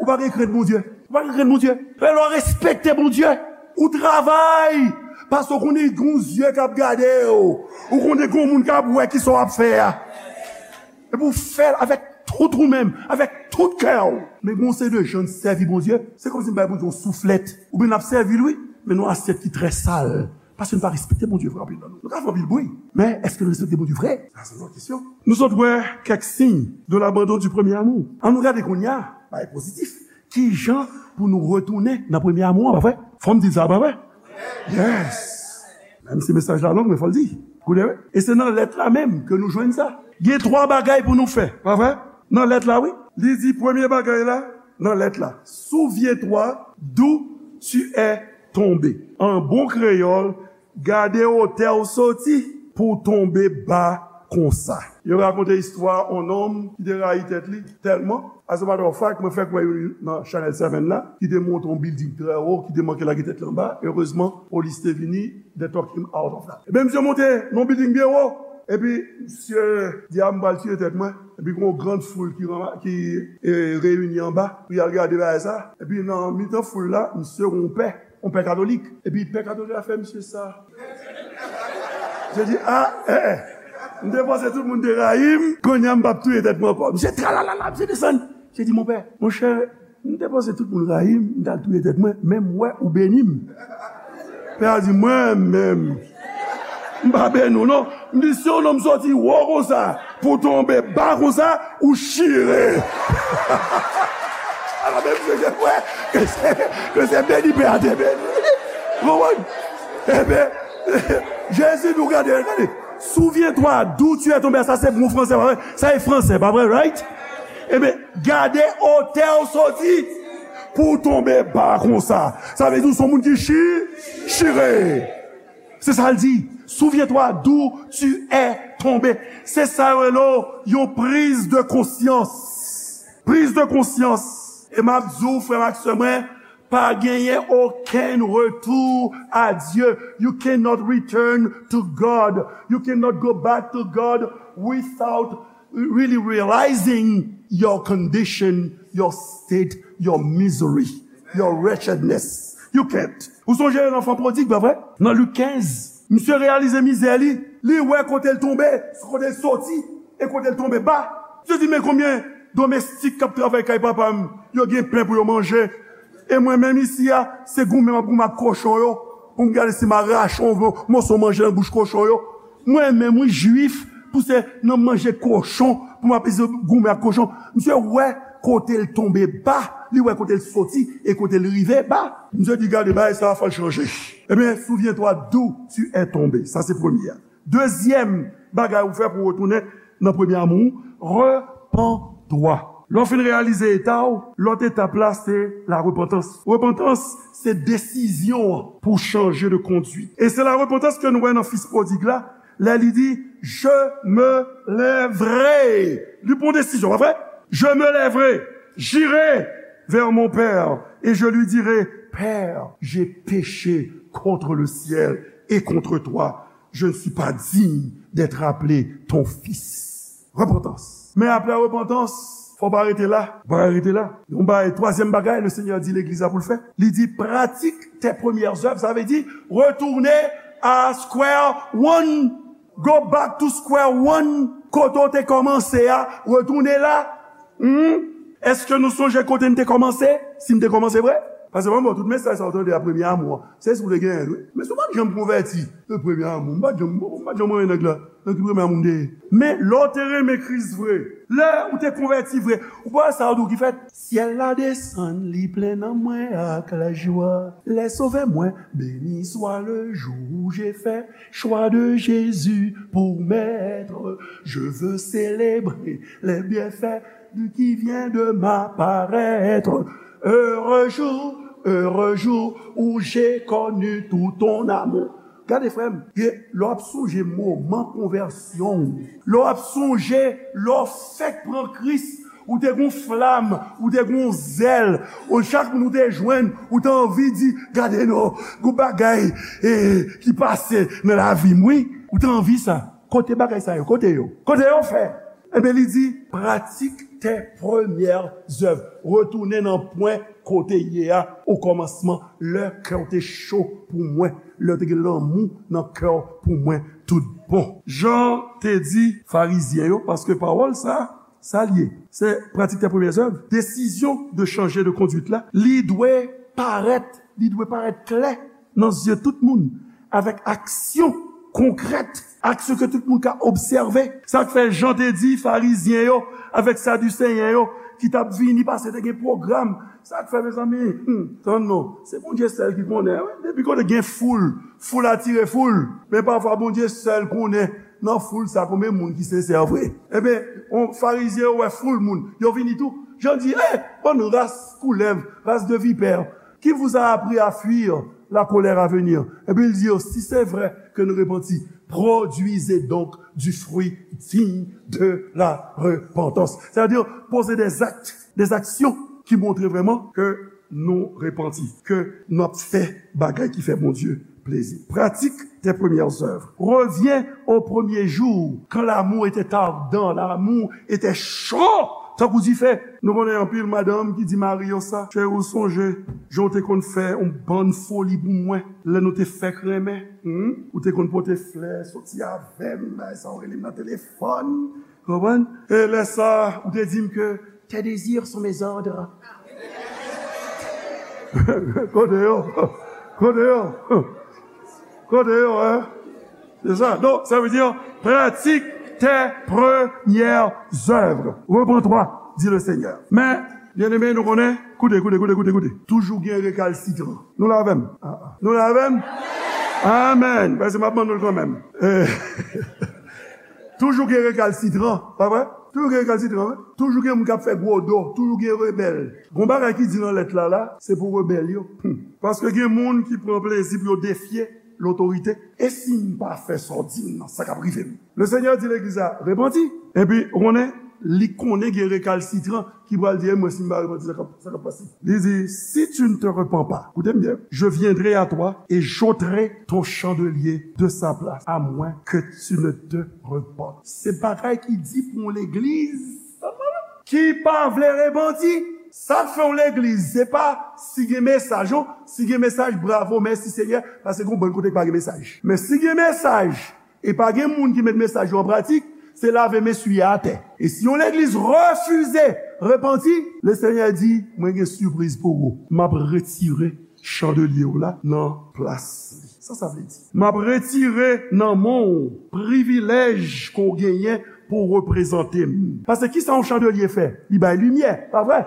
Ou pa gen krent Bondye. Ou pa gen krent Bondye. Fè lè w respekte Bondye. Ou travay. Paske w konnen gen yon zye k ap gade w. Ou konnen gen yon moun k ap wè kisa w ap fè a. Epi w fè l avèk tout ou menm, avèk tout kè w. Men gen yon seri de jan n sèvi Bondye, se kòmsi n bay Bondye yon souflèt. Oubyen n ap sèvi l, wi, men nan yon asyèt ki trè sal. Paske n pa respekte Bondye vre, anpil nan nou. Nou ka fè anpil bri, men èske n respekte Bondye vre? Sa se yon lòt kesyon. Nou sot wè kèk siy de l'abandon du premier amour. Ann nou gade kounye a, bagay pozitif. Kijan pou nou retounen nan premye amou an, pa vre? Fò m di l sa, pa vre? Yes! Menm si mesaj la long, men fò l di. Koute, wi. E se nan lèt la menm ke nou jwenn sa. Gen twa bagay pou nou fè, pa vre? Nan lèt la, wi. Li di premye bagay la, nan lèt la. Souviens-toi d'où tu es tombé. An bon kreyòl, gade otè w soti pou w tonbe ba konsa. Yo rakonte istwa on nonm ki te rayi tèt li tèlman. As a matter of fact, mwen fèk wè youn nan Channel Seven la, ki te monte on bilding trè wo, ki te manke lage tèt li anba. Erezman, polis te vini, they took him out of that. Ebyen, misye monte nan bilding byen wo. Epi, misye di, a, m pral tiye tèt mwen. Epi, gen yon gran foul ki, ranma- ki e, reyini anba pou y al gade bagay sa. Epi, nan mitan foul la, misye gen yon pè, yon pè katolik. Epi, pè katolik la fè misye sa. Misye di, a, e, e. M te panse tout moun te rayi m, kounye a m p ap touye tèt mwen ankò. Misye tralalala, misye desann. Misye di, monpè, monchè, m te panse tout moun rayi m, m t al touye tèt mwen, men m wè ou beni m. Pè a di, mwen menm, m pa beni w non. M di, si yon nonm soti wo konsa pou tonbe ba konsa, ou chire. Ala, men misye gen kwè ke se, ke se beni pè a te beni. Ou konprann? Ebyen, Jezi di w, gade, gade. Souviens-toi d'où tu es tombé. Sa se bon fransè, pa vre? Sa e fransè, pa vre, right? Ebyen, gade otè w soti pou w tonbe ba konsa. Sa vle di w se yon moun ki chi, chire. Se sa l di. Souviens-toi d'où tu es tombé. Se sa yo rele yon priz de konsyans. Priz de konsyans. E m ap di w, frè m ak sè mwen, pa genyen okenn retou a Dye. You cannot return to God. You cannot go back to God without really realizing your condition, your state, your misery, your wretchedness. You can't. Ou sonje lanfan pwodig, pa vre? Nan Lik kenz, misye reyalize mizè li. Li wè kote l tonbe, kote l soti, e kote l tonbe ba. Misye di, men konbyen domestik k ap travay kay papa m, yo gen pen pou yo manje. E mwen menm isi a, se goumen m ap goumen ak kochon yo, pou m gade si m a rache yon moso manje nan bouch kochon yo. Mwen menm, wi, jwif, pou se nan manje kochon, pou m ap isi goumen ak kochon. Misye wè kote l tonbe ba, li wè kote l soti, e kote l rive ba. Misye di, gade, bagay sa a, fò l chanje. Ebyen, souviens-toi d'où tu es tombé. Sa se premye a. Dezyèm bagay ou fè pou w retounen nan premye amou, repens-toi. Lè w fin reyalize eta w, lòt etap la se la repantans. Repantans se desizyon an pou chanje de konduit. E se la repantans ke nou wè nan fis pwodig la, lè li di, je me lèverai. Li pran desizyon, pa vre? Je me lèverai, j'irai vers mon père et je lui dirai, Père, j'ai péché contre le ciel et contre toi. Je ne suis pas digne d'être appelé ton fils. Repantans. Men apre repantans, fò w pa rete la. Ou pa ka rete la. Yon bagay, twazyèm bagay, le Seigneur di legliz la pou l fè. Li di, pratique tes premières œuvres. Sa vle di, retounen a square one. Go back to square one. Kote w te kòmanse a, retounen la. Hmm? Èske nou sonje kote n te kòmanse? Si n te kòmanse vre? Paske mwen, bon, tout mesaj sa w tande a premye amou an, se si w te genyen l, wi. Men si w pa t janm konvèti, e premye amou, m pa t janm, m pa t janm renmen nèg la. Nan ki premye amou m te ye? Men lè w te renmen Kris vre, lè ou te konvèti vre, ou pa wè sa yo di w ki fèt? Syèl la desann, li plen nan mwen ak lajwa. Les sauvés mwen, béni soit le jour où j'ai fait choix de Jésus pour maître. Je veux célébrer les bienfaits de qui vient de m'apparaître. Heureux jour, heureux jour où j'ai connu tout ton amour. Gade, frè m, lè w ap sonje moman konvèsyon w, lè w ap sonje lè w fèk pran Kris, ou te gon flam, ou te gon zèl, ou chak moun ou te jwenn, ou te anvi di, gade non, gon bagay, e, ki pase nan lavi m, wi. Ou te anvi sa. Kote bagay sa yo? Kote yo? Kote yo fè? Ebyen, li di, pratique tes premières œuvres. Retounen nan pwen kote ye a, o kòmansman, lè kè w te cho pou mwen, lè w te gen lanmou nan kè w pou mwen tout bon. Jan te di Farizyen yo, paske pawòl sa, sa l ye. Se pratique tes premières œuvres. Desizyon de chanje de konduit la, li dwe parèt, li dwe parèt klè nan zye tout moun, avèk aksyon konkrèt, aksyon ke tout moun ka obsève. Sa k fè Jan te di Farizyen yo avèk Sadiseyen yo, ki t ap vini paske te gen pwogram. Sa k fè, mezanmi? Hmm, tann non. Se Bondye sèl ki konnen, wi. Depi kote gen foul, foul atire foul. Men pafwa, Bondye sèl konnen nan foul sa konbyen moun ki sensè vre. Ebyen, on Farizyen yo wè foul moun. Yo vini tou. Jan di, eh, bann ras koulèv, race de vipères, qui vous a appris à fuir la colère à venir? Epi l di yo, si se vre ke nou repanti, produisez donc du fruit digne de la repentance. Sa vle di, poze des actes, des actions ki montre vrèman ke nou repanti, ke n ap fè bagay ki fè Bondye plezi. Pratique tes premières œuvres. Reviens au premier jour, quand l'amour était ardent, l'amour était chaud, tankou dife. Nou konnen anpil madanm ki di mari yo sa, cheri, ou sonje jan w te konn fè yon bann foli pou mwen lè nou te fèk renmen? Hmm? Ou te konn pote flè, soti avè m, bagay sa, ou rele m nan telefòn. Konprann? E lè sa, ou te di m ke tes désirs sont mes ordres. Kote yo? Kote yo? Kote yo, hein? C'est ça. Donc, ça veut dire, pratique tes premières œuvres. Reprends-toi, dit le Seigneur. Men, byeneme, nou konnen, koute, koute, koute, koute, koute. Toujou gen rekalsitran. Nou la avè m? Ah, ah. Nou la avè m? Amen. Paske m ap mande nou l kanmenm. Eh. Toujou gen rekalsitran, pa vre? Toujou gen rekalsitran, wi. Toujou gen moun k ap fè gwo do, toujou gen rebèl. Gon bagay ki di nan lèt la, la, se pou rebèl yo. Hmm. Paske gen moun ki pran plezi pou yo defye lotorite. E si m pa fè sa w di m nan, sa k ap rive m? Le Seigneur di legliz la, repanti. Epi, ou konnen, li konnen gen rekalsitran ki pral di, e mwen, si m pa repanti, sa k ap, sa k ap pase? Li di, si tu ne te repens pas, koute m byen, je viendrai à toi et j'ôterai ton chandelier de sa place, à moins que tu ne te repenses. Se bagay ki di pou yon legliz ki pa vle repanti. Sa k fè yon legliz, se pa si gen mesaj, non. Si gen mesaj, bravo, mèsi Senyè, paske gon bann kote k pa gen mesaj. Men si gen mesaj, e pa gen moun ki met mesaj yo an pratik, se lave men swiye atè. E si yon legliz refize repanti, le Senyè di, mwen gen sipriz pou ou. M ap retire chandelye w la nan plas li. Sa sa vle di? M ap retire nan men w privilèj ke w genyen pou w reprezante m. Paske kisa yon chandelye fè? Li bay limyè, pa vre?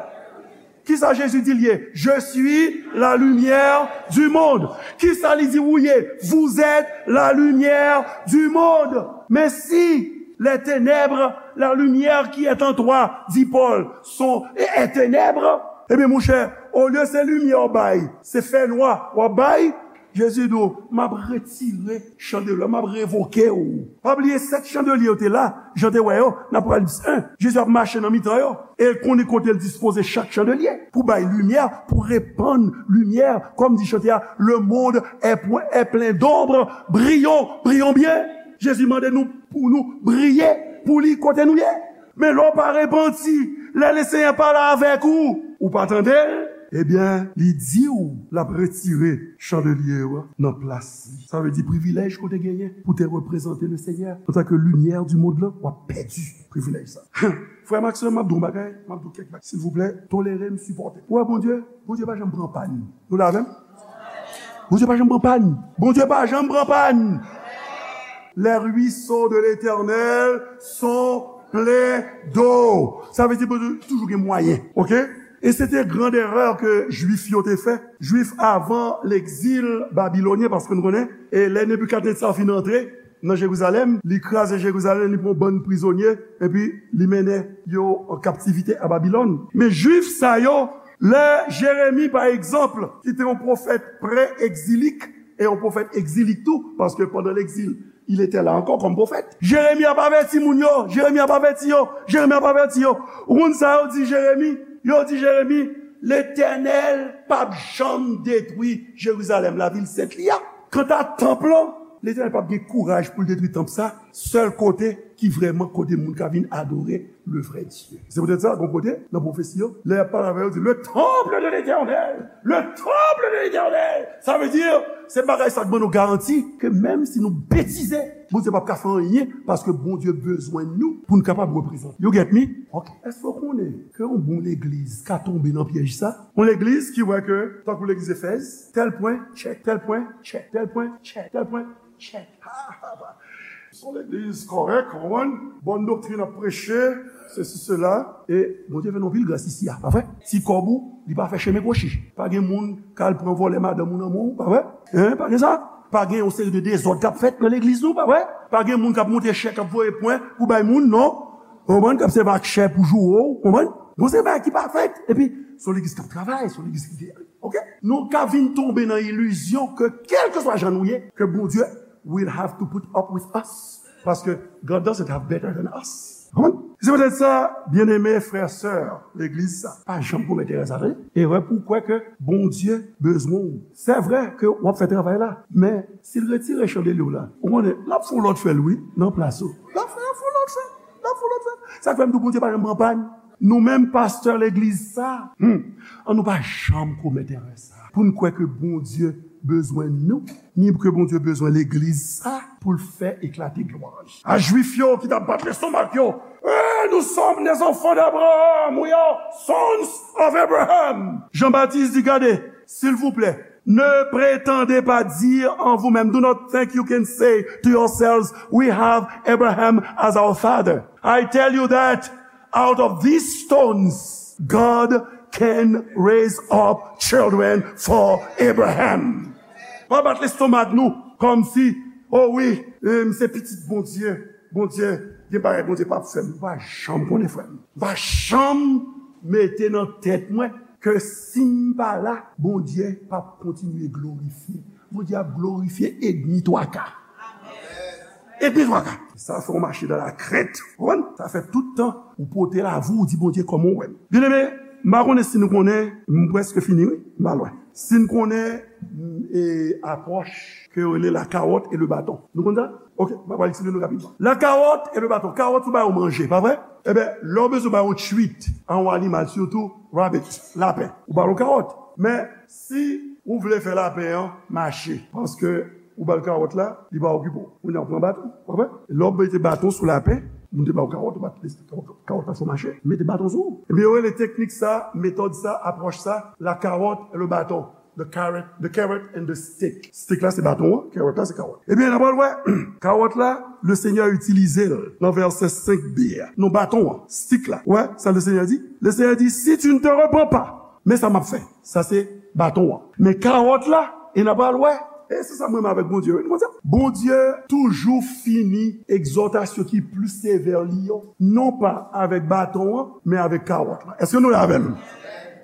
Kisa Jezi di l ye? Je suis la lumière du monde. Kisa li di ou ye? Vous êtes la lumière du monde. Mais si les ténèbres, la lumière qui est en toi, dit Paul, sont, est, est ténèbres, ebyen, monchè, olye se limyè w bay, se fènwa w ap bay, Jezi di w, m ap retire chandelye, m ap revoke w. Pa bliye, sèt chandelye yo te la, jan te wè yo, nan Apokalips en. Jezi ap mache nan mitan yo. E l konnen kote l dispoze chak chandelye pou bay limyè, pou repann limyè. Kòm di chante a, le monde est, est plein d'ombre, brillons, brillons bien. Jezi mande nou pou nou briye pou li kote nou ye. Men lè w pa repanti, lè Lesenyè pale avèk ou, ou pa tande l, ebyen, li di w l ap retire chandelye yo nan plas li. Sa vle di privilèj ke w te genyen pou te reprezante Lesenyè antanke limyè di mond lan, w ap pèdi privilèj sa. Frè m ak sè m, m ap di w yon bagay, m ap di w kèk bagay. Silvouplè, tolere m, sipòte m. Ou wè Bondye, Bondye pa janm pran pàn. Nou la avè m? Bondye pa janm pran pàn. Bondye pa janm pran pàn. Les ruisseaux de l'Éternel sont pleins d'eau. Sa vle di Bondye toujou gen mwayen, oke? E se te grand erè ke Jwif yo te fè. Jwif avan legzil babilonyen, paske nou konnen, e lè Nebikadnetza fin antre nan Jerizalèm, li kraze Jerizalèm, li pran bann prizonye, epi li mennen yo an kaptivite a Babilòn. Men Jwif sa yo, lè Jeremi, pa egzanp, ki te yon pwofèt pre-egzilik, e yon pwofèt egzilik tou, paske pandan legzil, il était là encore comme prophète. Jeremi ap avèti moun yo, Jeremi ap avèti yo, Jeremi ap avèti yo. Ou konn sa yo di Jeremi? Yo di Jeremi, Letènèl p ap janm detwi Jerizalèm, lavil sent li a. Kanta tanp lan, Letènèl p ap gen kouraj pou l detwi tanp sa, sèl kote ki vrèman kote moun ka vin adore le vrai Dieu. Se poutèt sa, gon kote, nan pwofesi yo, lè y ap pale avè yo, di, le temple de l'Éternel, le temple de l'Éternel. Sa vle di, se bagay sa k ban nou garanti ke menm si nou betize, Bondye p ap ka fè anyen, paske Bondye bezwen nou pou n kapab reprezante. You get me? Ok. Èske w konnen ke yon bon legliz ka tonbe nan pyèj sa? Yon legliz ki wè ke, tankou legliz Efèz, tèl pwen, tchèk, tèl pwen, tchèk, tèl pwen, tchèk, tèl pwen, tchèk. Se yon legliz kòrèk, w konprann? Bòn doktrin ap preche, sesi, sela. E Bondye fè nou anpil gras isi a, pa vre? Ti kòb ou, li pa fè chemen kwochi. Pa gen moun k al pran vòlè madanm ou nan men w, pa vre? Hein, pa gen sa? Pa gen yon seri de dezòd k ap fèt nan legliz nou, pa vre? Pa gen moun k ap monte chèk, k ap voye pwen pou bay moun, non? Ou konprann? K ap sèvi ak chè pou joure w, ou konprann? Gon seri bagay ki pa fèt. Epi, se yon legliz k ap travay, se yon legliz ki gen, oke? Nou ka vin tonbe nan ilizyon ke, kèlkeswa jan nou ye, ke Bondye will have to put up with us. Paske God doesn't have better than us. Konprann? Se poutèt sa, byeneme frè, sè legliz sa, pa janm komèt erè sa, tande. Erè pou w kwè ke Bondye bezwen w. Se vre ke w ap fè travay la, men si l retire chandelier w la, ou konnen, l ap fè yon lòt fè l, wi, nan plas ou. L ap fè, l ap fè yon lòt fè l. L ap fè yon lòt fè l. Sa k fè m di w Bondye pa janm pran pàn. Nou menm pastè legliz sa, hmm, an nou pa janm komèt erè sa. Pou n kwè ke Bondye bezwen nou, ni ke Bondye bezwen legliz sa pou l fè eklate glwa li. A Jwif yo ki t ap bat lestomak yo, eh, nous sommes des enfants d'Abraham, we are sons of Abraham. Jan Batis di, gade, silvouplè, ne prétendez pas dire en vous-même, do not think you can say to yourselves, we have Abraham as our father. I tell you that out of these stones, God can raise up children for Abraham. Pa bat lestomak nou kòmsi, o wi, eh, m se pitit Bondye. Bondye, gen bagay Bondye p ap fè m. Ou pa janm konnen, frè m. Ou pa janm mete nan tèt mwen ke si m pa la, Bondye p ap kontinye glorifye. Bondye ap glorifye edmi twa ka. Edmi twa ka. Sa fè w mache dans la crainte. Ou konprann? Sa fè tout tan ou pote lavi w, ou di Bondye kòman w wè m. Byeneme, m pa konnen si nou konnen, m prèske fini, wi, m pa lwen. Si n konnen, m, e, apwòch ke yo rele la carotte et le bâton. Nou konn sa? Oke, m ap eksplike nou rapidman. La carotte et le bâton. Kawòt ou ba yo manje, pa vre? Ebyen, lè w bezwen ba yon treat a yon animal, sitou rabbit, lapen, ou ba l yon kawòt. Men, si ou vle fè lapen an mache, paske ou ba l kawòt la, li pa okipe w. Kounye a ou pran baton, pa vre? Lè w mete baton sou lapen, moun te ba w kawòt, ou bat kawòt la fè w mache, mete baton sou ou. Ebyen, yo rele teknik sa, metòd sa, apwòch sa, la carotte et le bâton. The carrot, the carrot and the stick. Stick la se baton an, carrot la se kawòt. Ebyen, n ap pral wè kawòt la, le Seigneur itilize l nan vèsè senk b a. Non, baton an, stick la. Wè sa le Seigneur di? Le Seigneur di, si tu ne te repens pas, men sa m ap fè. Sa se baton an. Men kawòt la, e n ap pral wè. E se sa m renmen avèk Bondye, wi, nou konn sa? Bondye toujou fini egzòtasyon ki pli sevè li yo, non pa avèk baton an, men avèk kawòt la. Èske nou la avè m?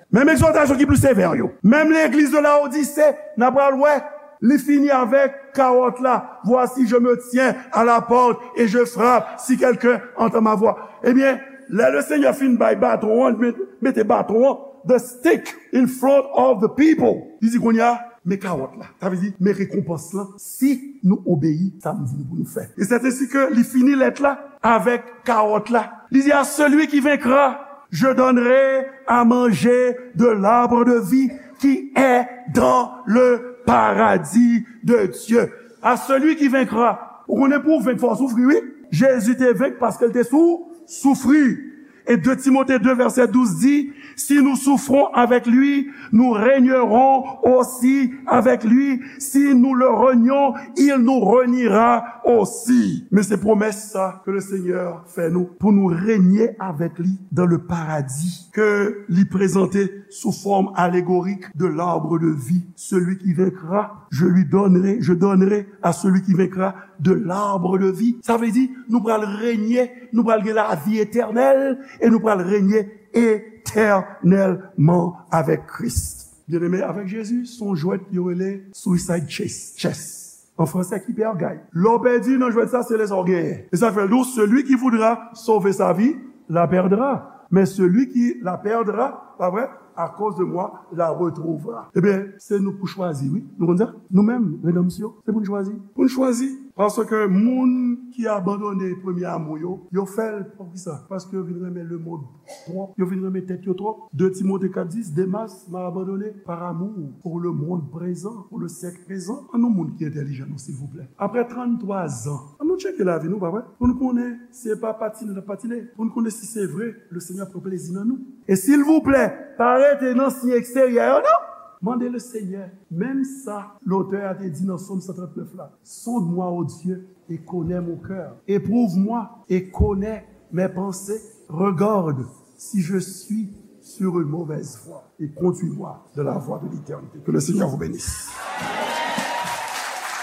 Menm egzòtasyon ki pli sevè yo. Menm legliz de Laodise, n ap pral wè, li fini avèk kawòt la. Voici, je me tiens à la porte et je frappe, si quelqu'un entend ma voix. Ebyen, lè le Seigneur fin bay baton an, li met, mete baton an, the stick in front of the people. Li di kounye a, men kawòt la. Sa vle di, men rekonpans lan, si nou obeyi sa m di nou pou nou fè. E c'est ainsi que li fini lèt la avèk kawòt la. Li di, à celui qui vaincra, je donnerai à manger de l'arbre de vie qui est dans le paradis de Dieu. À celui qui vaincra. Ou konnen pou w venk, fò w soufri, wi. Jezi te venk paske l te sou, soufri. Et deux Timothée deux verset douze dit, si nous souffrons avec lui, nous régnerons aussi avec lui. Si nous le renions, il nous reniera aussi. Men se pwomès sa ke le Seigneur fè nou pou nou renye avèk li dans le paradis ke li prezante sou fòm alegorik de l'arbre de vie. Celui qui vaincra, je lui donnerai, je donnerai à celui qui vaincra de l'arbre de vie. Sa vle di, nou pral renye, nou pral gen lavi etènèl e nou pral renye etènèlman avèk Kris. Byeneme, avèk Jezi, se yon jwèt yo rele suicide chess. Chess. An fransè, ki pè gay. Lè w pèdi nan jwèt sa, se lè sa w genyen. E sa fè l di w, celui qui voudra sauver sa vie, la perdra. Mais celui qui la perdra, pa vre, à cause de moi, la retrouvera. Ebyen, se nou pou chwazi, wi. Nou konn sa? Nou menm, redanmsyon, se pou n chwazi. Pou n chwazi. Paske moun ki abandone premye amou yo, yo fè l, poukisa? Paske yo vin renmen lemonn twòp. Yo vin renmen tèt yo twòp. De Timote kat dis, Demas m'a abandonné par amour pour le monde présent, pour le siècle présent. An nou moun ki entèlijan, non, silvouplè. Apre tranntwa zan, an nou tcheke lavi nou, pa vre? Pou n konnen si se pa patine n ap patine. Pou n konnen si se vre, le Seigneur pran plezi nan nou. E silvouplè, pa rete nan siy eksteryè yo, non. Mande le Seigneur, menm sa lotè a te di nan Sòm san trant nèf la, sonde-moi, ô Dieu, et connais mon cœur. Éprouve-moi et connais mes pensées. Regarde si je suis sur une mauvaise voie et conduis-moi dans la voie de l'éternité. Que le Seigneur vous bénisse.